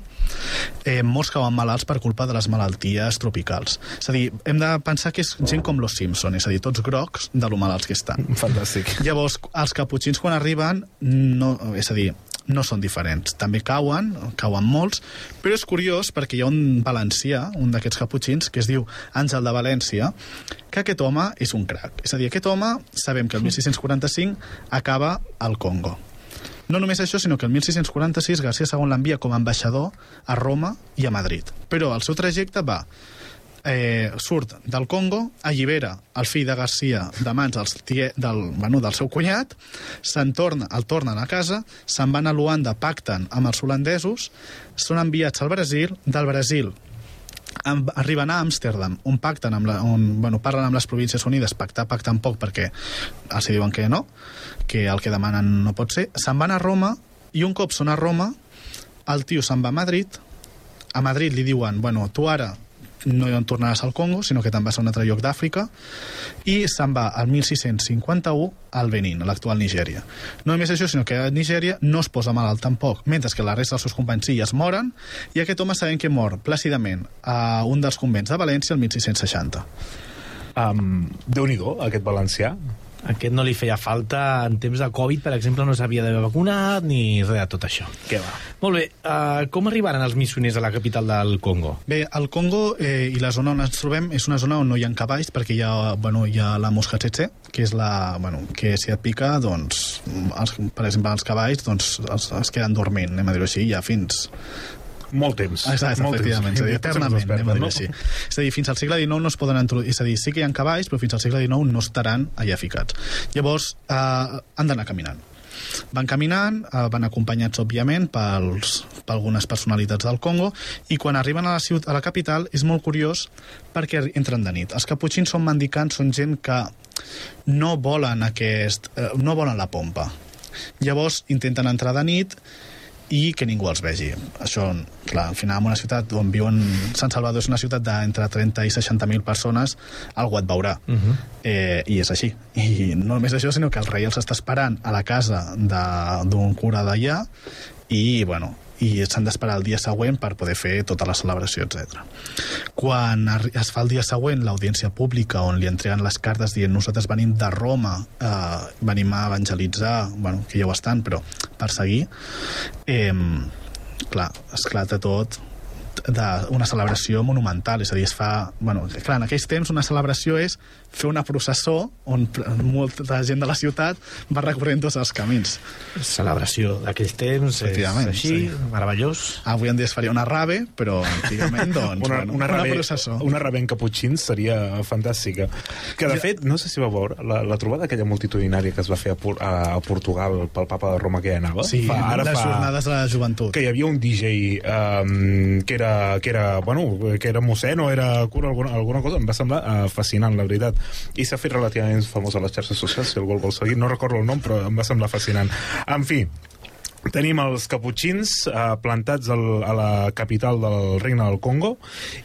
molts cauen malalts per culpa de les malalties tropicals. És a dir, hem de pensar que és gent com los Simpson, és a dir, tots grocs de lo malalts que estan. Fantàstic. Llavors, els caputxins quan arriben, no són diferents. També cauen molts, però és curiós perquè hi ha un valencià, un d'aquests caputxins, que es diu Àngel de València, que aquest home és un crac. És a dir, aquest home, sabem que el 1645 acaba al Congo. No només això, sinó que el 1646 García II l'envia com a ambaixador a Roma i a Madrid. Però el seu trajecte surt del Congo, allibera el fill de García de mans del seu cunyat, el tornen a casa, se'n van a Luanda, pacten amb els holandesos, són enviats al Brasil, del Brasil arriben a Amsterdam, on pacten parlen amb les Províncies Unides, pacten poc perquè els diuen que no, que el que demanen no pot ser, se'n van a Roma, i un cop són a Roma, el tio se'n va a Madrid li diuen, tu ara no en tornaràs al Congo, sinó que te'n vas a un altre lloc d'Àfrica, i se'n va al 1651 al Benín, a l'actual Nigèria. No només això, sinó que a Nigèria no es posa malalt tampoc, mentre que la resta dels seus companys sí es moren, i aquest home sabem que mor plàcidament a un dels convents de València el 1660. Déu-n'hi-do, aquest valencià. Aquest no li feia falta en temps de Covid, per exemple, no s'havia d'haver vacunat ni res de tot això. Què va? Molt bé, com arribaren els missioners a la capital del Congo? Bé, el Congo i la zona on ens trobem és una zona on no hi ha cavalls, perquè hi ha la mosca tsetse, que és que si et pica, doncs, per exemple, els cavalls doncs, es queden dormint, anem a dir-ho així, ja fins... Molt temps. Exacte, efectivament, és a dir, eternament, anem a dir-ho així. És a dir, fins al segle XIX no es poden introduir, és a dir, sí que hi ha cavalls, però fins al segle XIX no estaran allà ficats. Llavors, han d'anar caminant. Van caminant, van acompanyats, òbviament, per algunes personalitats del Congo, i quan arriben a la capital és molt curiós perquè entren de nit. Els caputxins són mendicants, són gent que no volen no volen la pompa. Llavors intenten entrar de nit i que ningú els vegi. Això, clar, al final, en una ciutat on viuen... Sant Salvador és una ciutat d'entre 30 i 60.000 persones, algú et veurà. I és així. I no només això, sinó que el rei els està esperant a la casa d'un cura d'allà i, i s'han d'esperar el dia següent per poder fer tota la celebració, etc. Quan es fa el dia següent l'audiència pública on li entreguen les cartes dient nosaltres venim de Roma, venim a evangelitzar, que ja ho estan, però per seguir, clar, esclata tot d'una celebració monumental, és a dir, es fa... clar, en aquells temps una celebració és fer una processó on molta gent de la ciutat va recorrent tots els camins. Celebració d'aquells temps, és així, meravellós. Avui en dia es faria una rave, però antigament, doncs, una processó. Una rave en caputxins seria fantàstica. Que, de fet, no sé si va veure la trobada aquella multitudinària que es va fer a Portugal pel papa de Roma que hi anava. Sí, les jornades de la joventut. Que hi havia un DJ que era mossèn o era cura, alguna cosa, em va semblar fascinant, la veritat. I s'ha fet relativament famós a les xarxes socials, si algú el vol seguir, no recordo el nom, però em va semblar fascinant. En fi, tenim els caputxins plantats a la capital del Regne del Congo,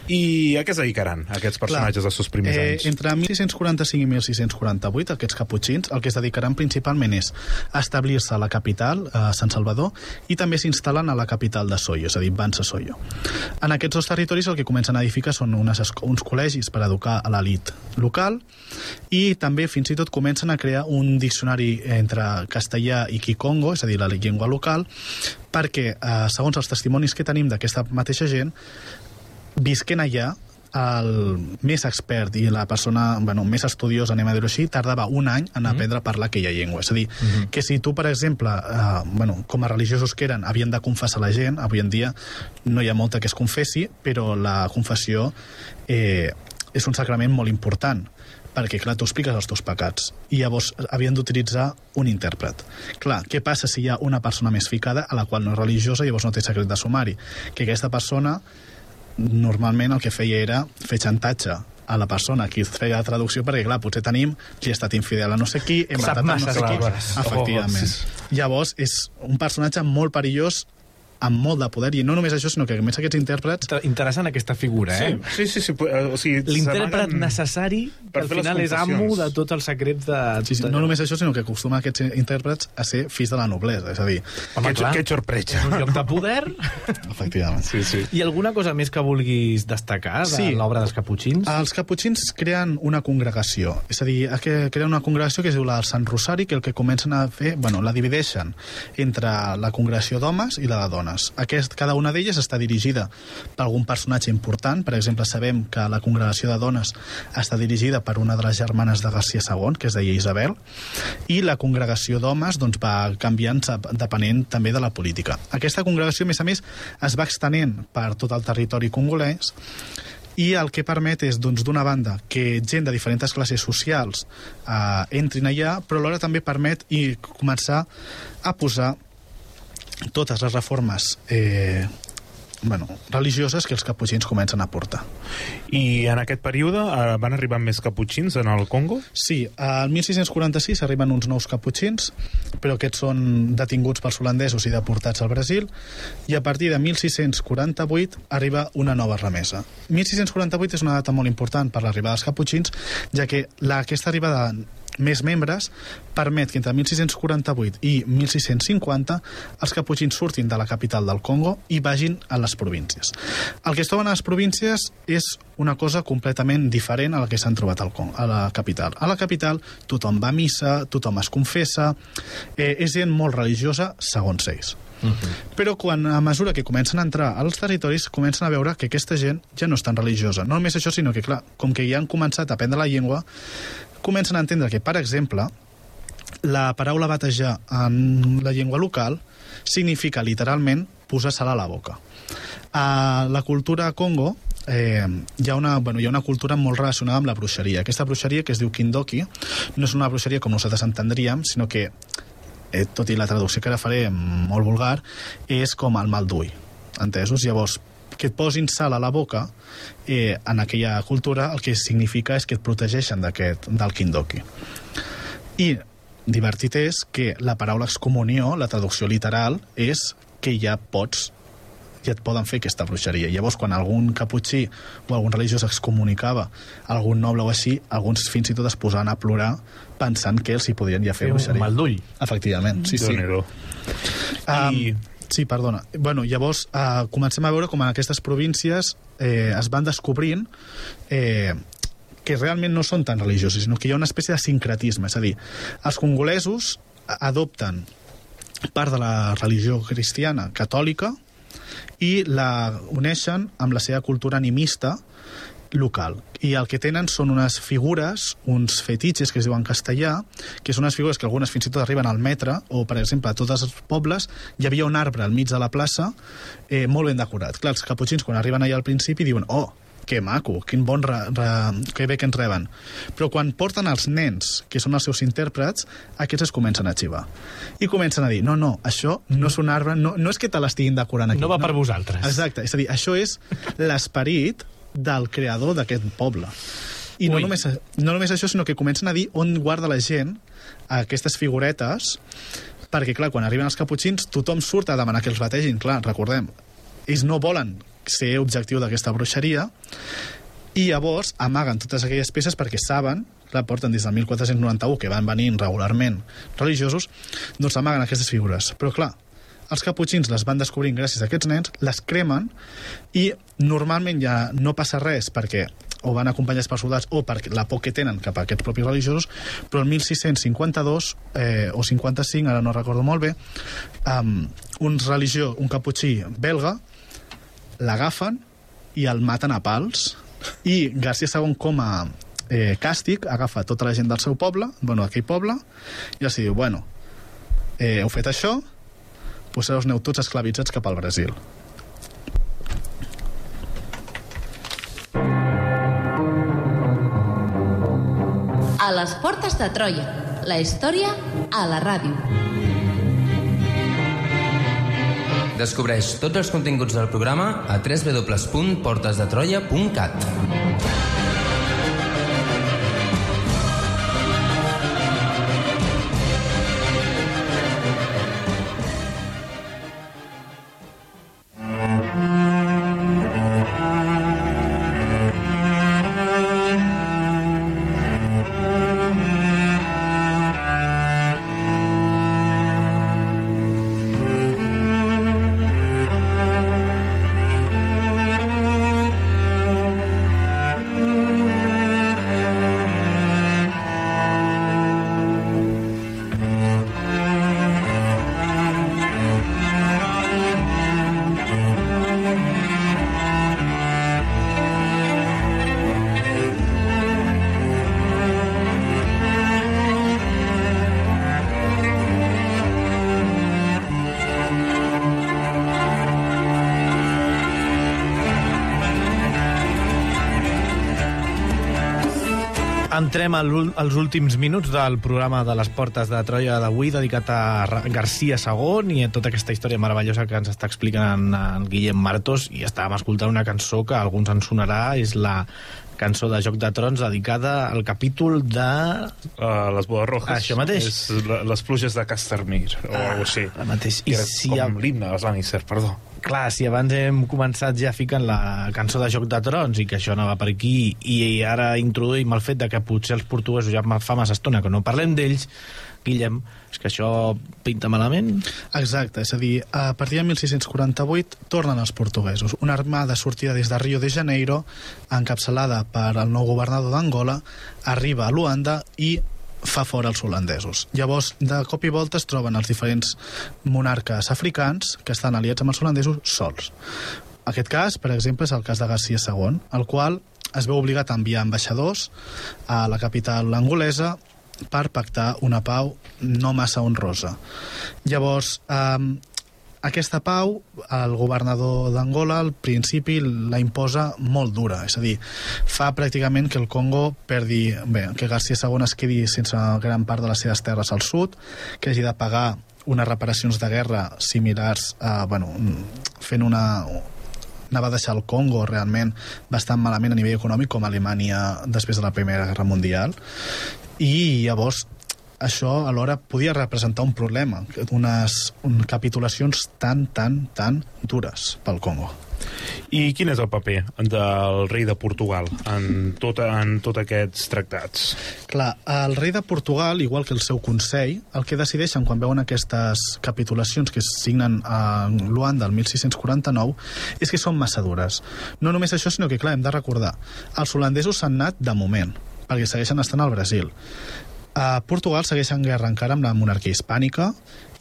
i a què es dedicaran aquests personatges dels seus primers anys? Entre 1645 i 1648 aquests caputxins el que es dedicaran principalment és a establir-se a la capital, a Sant Salvador, i també s'instal·len a la capital de Soyo, és a dir, Bansa-Soyo. En aquests dos territoris el que comencen a edificar són uns col·legis per educar a l'elit local, i també fins i tot comencen a crear un diccionari entre castellà i kikongo, és a dir, la llengua local, perquè, segons els testimonis que tenim d'aquesta mateixa gent, visquent allà, el més expert i la persona més estudiosa, anem a dir-ho així, tardava un any en aprendre a parlar aquella llengua. És a dir, que si tu, per exemple, com a religiosos que eren, havien de confessar la gent, avui en dia no hi ha molta que es confessi, però la confessió és un sacrament molt important, perquè, clar, tu expliques els teus pecats, i llavors havien d'utilitzar un intèrpret. Clar, què passa si hi ha una persona més ficada a la qual no és religiosa i llavors no té secret de sumari? Que aquesta persona normalment el que feia era fer xantatge a la persona qui feia la traducció, perquè, clar, potser tenim qui ha estat infidel a no sé qui, hem matat a no sé qui. Efectivament. Llavors, és un personatge molt perillós, amb molt de poder, i no només això, sinó que a més aquests intèrprets... Interessant aquesta figura, Sí. O sigui, l'intèrpret necessari, que al final és amo de tots els secrets de... Sí, no només això, sinó que acostumen aquests intèrprets a ser fills de la noblesa, és a dir... Que sorpresa. És un lloc de poder. Efectivament. Sí. I alguna cosa més que vulguis destacar de l'obra dels caputxins? Els caputxins creen una congregació, és a dir, creen una congregació que es diu la del Sant Rosari, que el que comencen a fer... la divideixen entre la congregació d'homes i la de dones. Cada una d'elles està dirigida per algun personatge important. Per exemple, sabem que la congregació de dones està dirigida per una de les germanes de García II, que es deia Isabel, i la congregació d'homes va canviant depenent també de la política. Aquesta congregació, a més, es va extenent per tot el territori congolès, i el que permet és, d'una banda, que gent de diferents classes socials entrin allà, però alhora també permet començar a posar totes les reformes religioses que els caputxins comencen a portar. I en aquest període van arribar més caputxins en el Congo? Sí, al 1646 arriben uns nous caputxins, però aquests són detinguts pels holandesos i deportats al Brasil, i a partir de 1648 arriba una nova remesa. 1648 és una data molt important per l'arribada dels caputxins, ja que aquesta arribada més membres, permet que entre 1648 i 1650 els caputxins surtin de la capital del Congo i vagin a les províncies. El que es troben a les províncies és una cosa completament diferent a la que s'han trobat al Congo, a la capital. A la capital tothom va a missa, tothom es confessa, és gent molt religiosa, segons ells. Però a mesura que comencen a entrar als territoris, comencen a veure que aquesta gent ja no és tan religiosa. No només això, sinó que, clar, com que ja han començat a aprendre la llengua, comencen a entendre que, per exemple, la paraula batejar en la llengua local significa literalment posar sal a la boca. A la cultura Congo hi ha una cultura molt relacionada amb la bruixeria. Aquesta bruixeria, que es diu Kindoki, no és una bruixeria com nosaltres entendríem, sinó que, tot i la traducció que ara faré molt vulgar, és com el mal d'ull, entesos? Llavors, que et posin sal a la boca, en aquella cultura el que significa és que et protegeixen del Kindoki. I divertit és que la paraula excomunió, la traducció literal, és que ja et poden fer aquesta bruixeria. Llavors, quan algun caputxí o algun religiós excomunicava algun noble o així, alguns fins i tot es posaven a plorar pensant que els hi podrien ja fer bruixeria. Un mal d'ull. Efectivament, sí. Sí, perdona. Llavors, comencem a veure com en aquestes províncies es van descobrint que realment no són tan religiosos, sinó que hi ha una espècie de sincretisme. És a dir, els congolesos adopten part de la religió cristiana catòlica i la uneixen amb la seva cultura animista local. I el que tenen són unes figures, uns fetitxes que es diuen castellà, que són unes figures que algunes fins i tot arriben al metre, o per exemple a tots els pobles hi havia un arbre al mig de la plaça molt ben decorat. Clar, els caputxins quan arriben allà al principi diuen que maco, quin bon que bé que ens reben. Però quan porten els nens, que són els seus intèrprets, aquests es comencen a xivar. I comencen a dir, no, això no és un arbre, no és que te l'estiguin decorant aquí. No va per vosaltres. Exacte, és a dir, això és l'esperit del creador d'aquest poble. I no només això, sinó que comencen a dir on guarda la gent aquestes figuretes, perquè, clar, quan arriben els caputxins, tothom surt a demanar que els bategin. Clar, recordem, ells no volen ser objectiu d'aquesta bruixeria i llavors amaguen totes aquelles peces perquè saben, la porten des del 1491 que van venint regularment religiosos, doncs amaguen aquestes figures. Però clar, els caputxins les van descobrint gràcies a aquests nens, les cremen i normalment ja no passa res perquè o van acompanyats per soldats o per la por que tenen cap a aquests propis religiosos, però el 1652 o 55, ara no recordo molt bé, un caputxí belga l'agafen i el maten a pals i Garcia II com a càstig agafa tota la gent del seu poble, d'aquell poble, i els diu, heu fet això, doncs us aneu tots esclavitzats cap al Brasil. A les portes de Troia, la història a la ràdio. Descobreix tots els continguts del programa a www.portesdetroia.cat. Entrem als últims minuts del programa de les Portes de Troia d'avui, dedicat a Garcia II i a tota aquesta història meravellosa que ens està explicant en Guillem Martos. I estàvem escoltant una cançó que a alguns ens sonarà, és la cançó de Joc de Trons dedicada al capítol de... Les bodes rojas. Això mateix. És les pluges de Castamir, o alguna cosa així. Mateix. Com l'himne dels Lannister, perdó. Clar, si abans hem començat ja ficant la cançó de Joc de Trons i que això anava per aquí, i ara introduïm el fet de que potser els portuguesos ja fa massa estona que no parlem d'ells, Guillem, és que això pinta malament? Exacte, és a dir, a partir de 1648 tornen els portuguesos. Una armada sortida des de Rio de Janeiro, encapçalada per el nou governador d'Angola, arriba a Luanda i fa fora els holandesos. Llavors, de cop i volta es troben els diferents monarques africans que estan aliats amb els holandesos sols. Aquest cas, per exemple, és el cas de Garcia II, el qual es veu obligat a enviar ambaixadors a la capital angolesa per pactar una pau no massa honrosa. Llavors, aquesta pau, el governador d'Angola al principi la imposa molt dura, és a dir, fa pràcticament que el Congo perdi, que Garcia II es quedi sense gran part de les seves terres al sud, que hagi de pagar unes reparacions de guerra similars a, fent anava a deixar el Congo realment bastant malament a nivell econòmic com Alemanya després de la Primera Guerra Mundial, i llavors això alhora podia representar un problema, unes capitulacions tan dures pel Congo. I quin és el paper del rei de Portugal en tots aquests tractats? Clar, el rei de Portugal, igual que el seu consell, el que decideixen quan veuen aquestes capitulacions que es signen a Luanda el 1649 és que són massa dures. No només això, sinó que, clar, hem de recordar, els holandesos s'han anat de moment, perquè segueixen estant al Brasil. A Portugal segueix en guerra encara amb la monarquia hispànica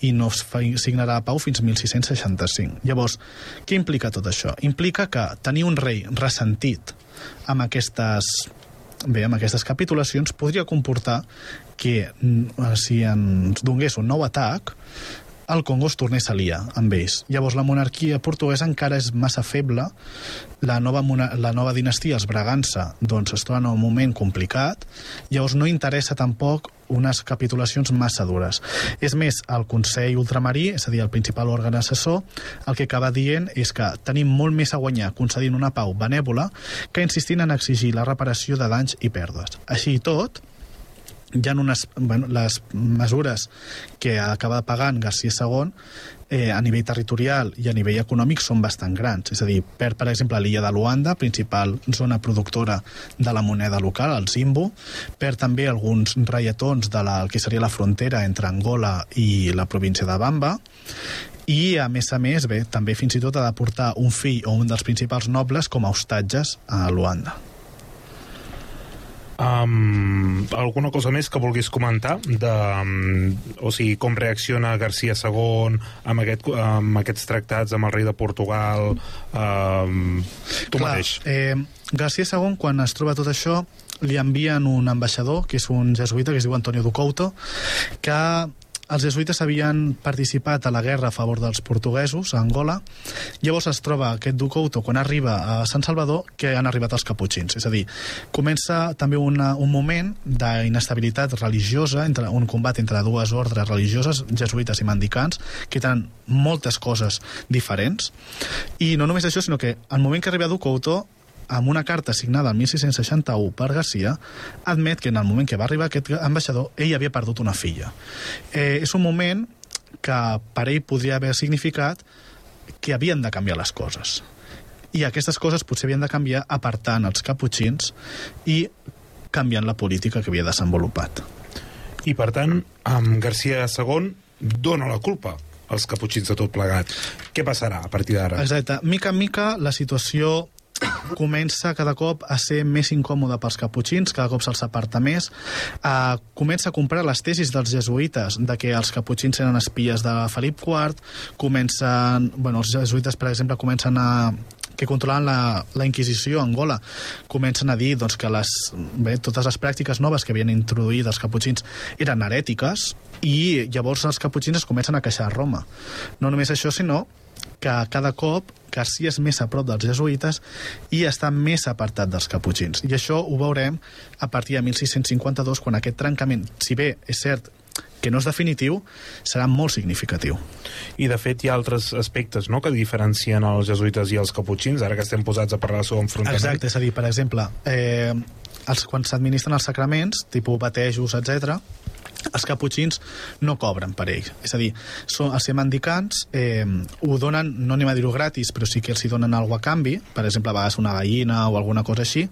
i no es signarà pau fins 1665. Llavors, què implica tot això? Implica que tenir un rei ressentit amb aquestes capitulacions podria comportar que si ens donés un nou atac, el Congo es tornés a liar amb ells. Llavors la monarquia portuguesa encara és massa feble, la nova dinastia, els Bragança, doncs es troba en un moment complicat, llavors no interessa tampoc unes capitulacions massa dures. És més, el Consell Ultramarí, és a dir, el principal òrgan assessor, el que acaba dient és que tenim molt més a guanyar concedint una pau benèvola que insistint en exigir la reparació de danys i pèrdues. Així i tot, hi ha les mesures que acaba pagant Garcia II a nivell territorial i a nivell econòmic són bastant grans. És a dir, per exemple, l'illa de Luanda, principal zona productora de la moneda local, el Zimbu, per també alguns reietons de que seria la frontera entre Angola i la província de Bamba, i a més, també fins i tot ha de portar un fill o un dels principals nobles com a hostatges a Luanda. Alguna cosa més que vulguis comentar o sigui, com reacciona Garcia II amb aquests tractats amb el rei de Portugal, tu mateix? Garcia II, quan es troba tot això, li envien un ambaixador, que és un jesuïta que es diu Antonio do Couto, que els jesuïtes havien participat a la guerra a favor dels portuguesos a Angola. Llavors es troba aquest do Couto, quan arriba a Sant Salvador, que han arribat els caputxins. És a dir, comença també un moment d'inestabilitat religiosa, un combat entre dues ordres religioses, jesuïtes i mendicants, que tenen moltes coses diferents. I no només això, sinó que al moment que arriba do Couto, amb una carta signada el 1661 per Garcia, admet que en el moment que va arribar aquest ambaixador, ell havia perdut una filla. És un moment que per ell podria haver significat que havien de canviar les coses. I aquestes coses potser havien de canviar apartant els caputxins i canviant la política que havia desenvolupat. I per tant, Garcia II dona la culpa als caputxins de tot plegat. Què passarà a partir d'ara? Exacte. Mica en mica la situació comença cada cop a ser més incòmode pels caputxins, cada cop se'ls aparta més, comença a comprar les tesis dels jesuïtes de que els caputxins eren espies de Felip IV, els jesuïtes, per exemple, comencen que controlaven la Inquisició a Angola, comencen a dir que totes les pràctiques noves que havien introduït els caputxins eren herètiques, i llavors els caputxins es comencen a queixar a Roma. No només això, sinó que cada cop Garcia és més a prop dels jesuïtes i està més apartat dels caputxins. I això ho veurem a partir de 1652, quan aquest trencament, si bé és cert que no és definitiu, serà molt significatiu. I de fet hi ha altres aspectes, no?, que diferencien els jesuïtes i els caputxins, ara que estem posats a parlar sobre enfrontament. Exacte, és a dir, per exemple, quan s'administren els sacraments, tipus batejos, etc., els caputxins no cobren per ells. És a dir, els ser mendicants ho donen, no anem a dir-ho gratis, però sí que els hi donen alguna a canvi, per exemple, a vegades una gallina o alguna cosa així,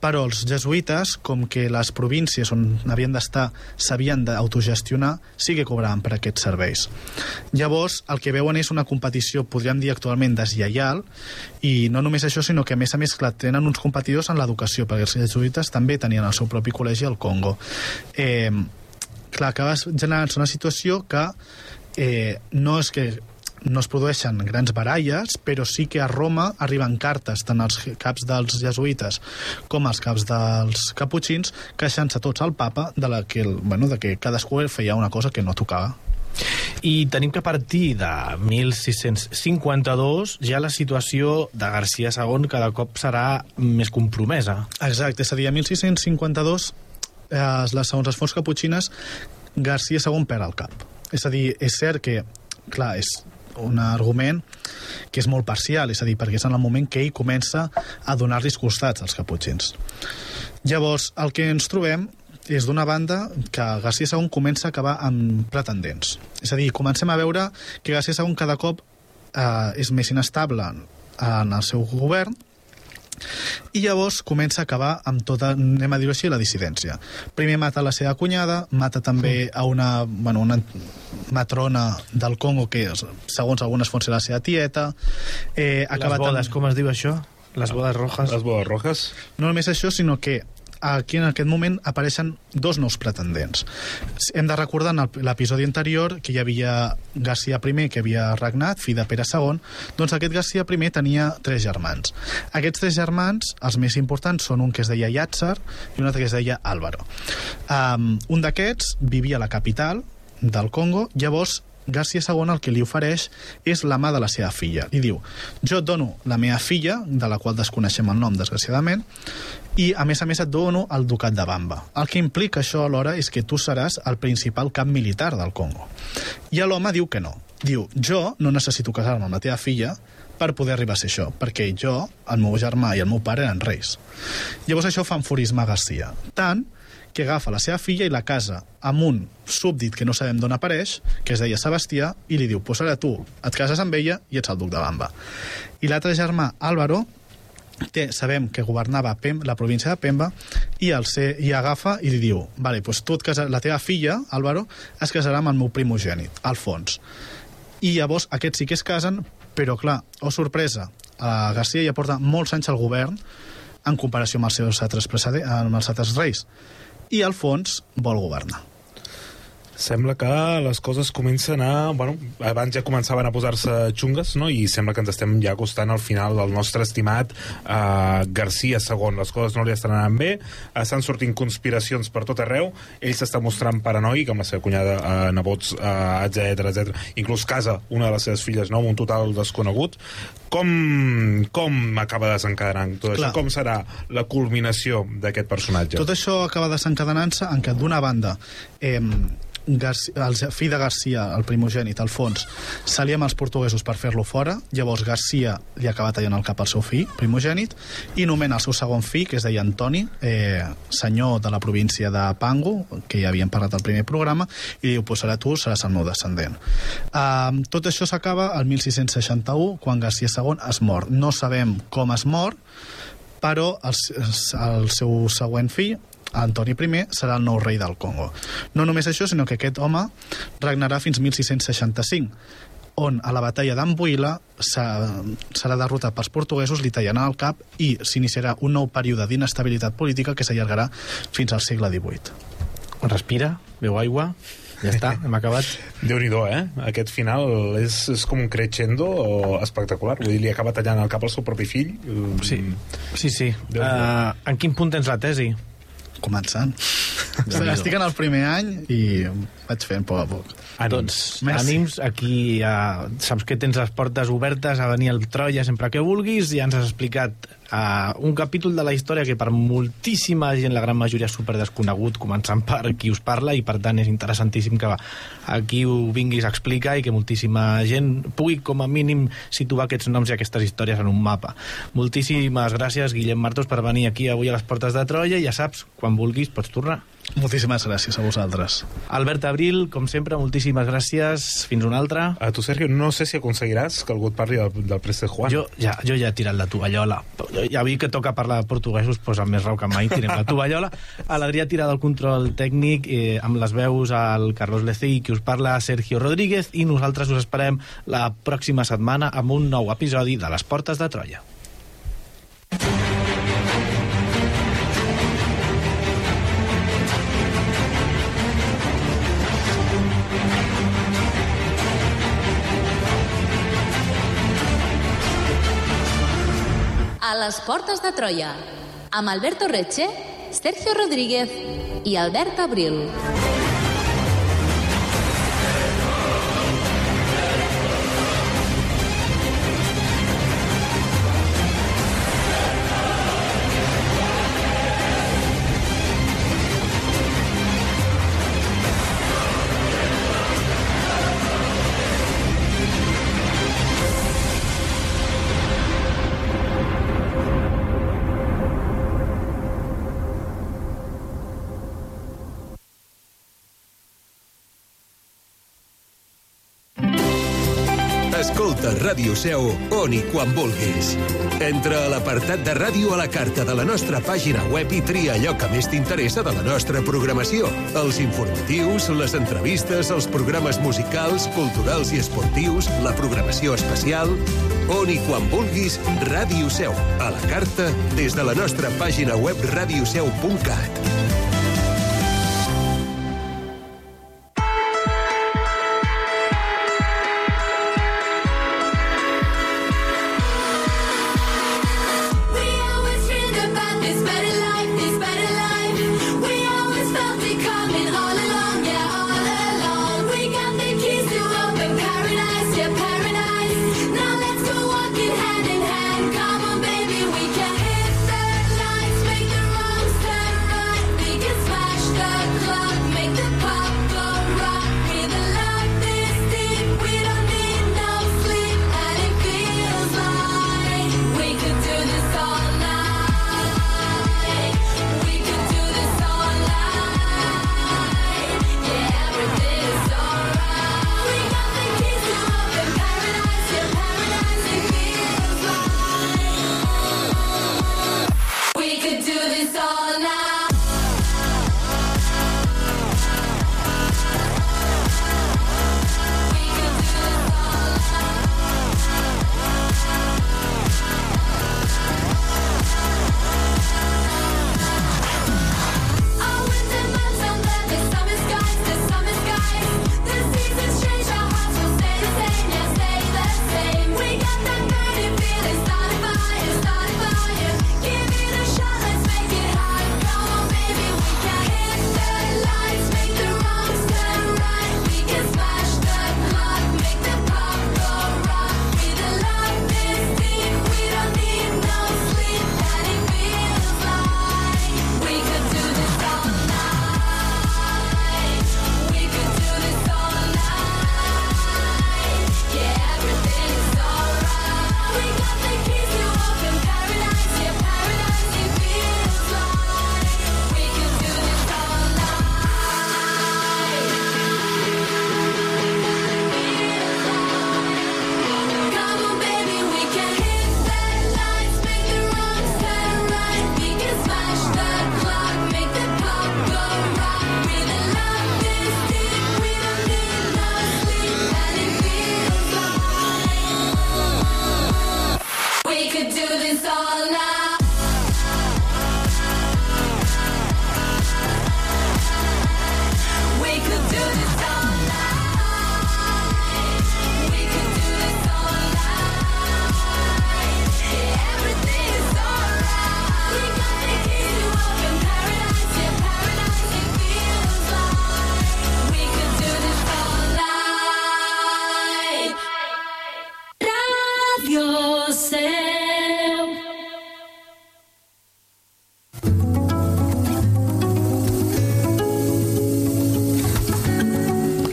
però els jesuïtes, com que les províncies on havien d'estar s'havien d'autogestionar, sí que cobraven per aquests serveis. Llavors, el que veuen és una competició, podríem dir actualment, deslleial, i no només això, sinó que a més, clar, tenen uns competidors en l'educació, perquè els jesuïtes també tenien el seu propi col·legi al Congo. Clar, acaba generant-se una situació que no és que no es produeixen grans baralles, però sí que a Roma arriben cartes tant als caps dels jesuïtes com als caps dels caputxins queixant-se tots al papa de que cadascú feia una cosa que no tocava. I tenim que a partir de 1652 ja la situació de Garcia II cada cop serà més compromesa. Exacte, és a dir, a 1652 segons les fonts caputxines, Garcia II perd el cap. És a dir, és cert que, clar, és un argument que és molt parcial, és a dir, perquè és en el moment que ell comença a donar-los costats als caputxins. Llavors, el que ens trobem és d'una banda que Garcia II comença a acabar amb pretendents. És a dir, comencem a veure que Garcia II cada cop és més inestable en el seu govern, i llavors comença a acabar amb tota, anem a dir-ho així, la dissidència. Primer mata la seva cunyada, mata també a una matrona del Congo que, segons algunes fonts, és la seva tieta. Les bodes, com es diu això? Les bodes rojas? Les bodes rojas. No només això, sinó que aquí en aquest moment apareixen dos nous pretendents. Hem de recordar en l'episodi anterior que hi havia Garcia I, que havia regnat, fill de Pere II, doncs aquest Garcia I tenia 3 germans. Aquests 3 germans, els més importants, són un que es deia Llàtzer i un altre que es deia Álvaro. Un d'aquests vivia a la capital del Congo, llavors Garcia II el que li ofereix és la mà de la seva filla. Li diu, jo et dono la meva filla, de la qual desconeixem el nom, desgraciadament, i a més et dono el ducat de Bamba. El que implica això alhora és que tu seràs el principal cap militar del Congo. I l'home diu que no. Diu, jo no necessito casar-me amb la teva filla per poder arribar a ser això, perquè jo, el meu germà i el meu pare eren reis. Llavors això fa enfurismar Garcia. Tant que agafa la seva filla i la casa amb un súbdit que no sabem d'on apareix, que es deia Sebastià, i li diu, pues ara tu et cases amb ella i ets el duc de Bamba. I l'altre germà, Álvaro, sabem que governava la província de Pemba, i agafa i li diu, vale, pues tu la teva filla, Álvaro, es casarà amb el meu primogènit, Alfons. I llavors aquests sí que es casen, però clar, sorpresa, Garcia ja porta molts anys al govern en comparació amb els altres reis, i Alfons vol governar. Sembla que les coses comencen a... Bueno, abans ja començaven a posar-se xungues, no? I sembla que ens estem ja acostant al final del nostre estimat Garcia II. Les coses no li estan anant bé, estan sortint conspiracions per tot arreu, ell s'està mostrant paranoic amb la seva cunyada, nebots, etc. Inclús casa una de les seves filles, no? Amb un total desconegut. Com acaba desencadenant tot això? Com serà la culminació d'aquest personatge? Tot això acaba desencadenant-se en què, d'una banda, el fill de Garcia, el primogènit, Alfons, s'alia amb els portuguesos per fer-lo fora. Llavors Garcia li acaba tallant el cap al seu fill primogènit i nomena el seu segon fill, que es deia Antoni, senyor de la província de Pango, que ja havíem parlat al primer programa, i diu, pues ara tu seràs el meu descendent. Tot això s'acaba el 1661, quan Garcia II es mor. No sabem com es mor, però el seu següent fill, Antoni I, serà el nou rei del Congo. No només això, sinó que aquest home regnarà fins 1665, on a la batalla d'Ambuila serà derrotat pels portuguesos, li tallaran el cap i s'iniciarà un nou període d'inestabilitat política que s'allargarà fins al segle XVIII. Respira, beu aigua, ja està, hem acabat. Déu-n'hi-do, Aquest final és com un crescendo espectacular. Vull dir, li acaba tallant el cap al seu propi fill. Sí. En quin punt tens la tesi? Començant. Estic en el primer any i vaig fent poc a poc. Doncs ànims, aquí saps que tens les portes obertes a venir al Troia sempre que vulguis. Ja ens has explicat un capítol de la història que per moltíssima gent, la gran majoria, és super desconegut, començant per qui us parla, i per tant és interessantíssim que aquí ho vinguis a explicar i que moltíssima gent pugui com a mínim situar aquests noms i aquestes històries en un mapa. Moltíssimes gràcies, Guillem Martos, per venir aquí avui a les portes de Troia, i ja saps, quan vulguis pots tornar. Moltíssimes gràcies a vosaltres. Albert Abril, com sempre, moltíssimes gràcies. Fins una altra. A tu, Sergio, no sé si aconseguiràs que algú et parli del préstec Juan. Jo ja he tirat la tovallola. Ja vi que toca parlar de portuguesos, doncs amb més rau que mai tirem la tovallola. A l'Adrià tira del control tècnic, amb les veus al Carlos Lecey, que us parla Sergio Rodríguez, i nosaltres us esperem la pròxima setmana amb un nou episodi de Les Portes de Troia. A les Portes de Troia, amb Alberto Reche, Sergio Rodríguez i Albert Abril. Escolta Ràdio Seu on i quan vulguis. Entra a l'apartat de ràdio a la carta de la nostra pàgina web i tria allò que més t'interessa de la nostra programació. Els informatius, les entrevistes, els programes musicals, culturals i esportius, la programació especial. On i quan vulguis, Ràdio Seu. A la carta des de la nostra pàgina web radioseu.cat.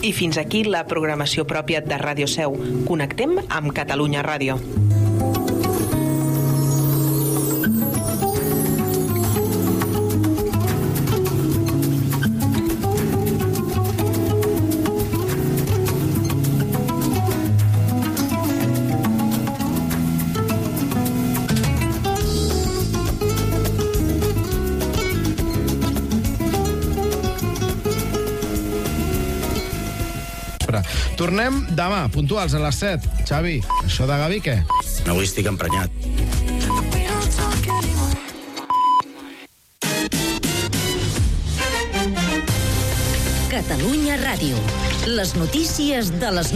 I fins aquí la programació pròpia de Ràdio Seu. Connectem amb Catalunya Ràdio. vespre. Tornem demà, puntuals a les 7. Xavi, això de Gavi, què? Avui estic emprenyat. Catalunya Ràdio. Les notícies de les 9.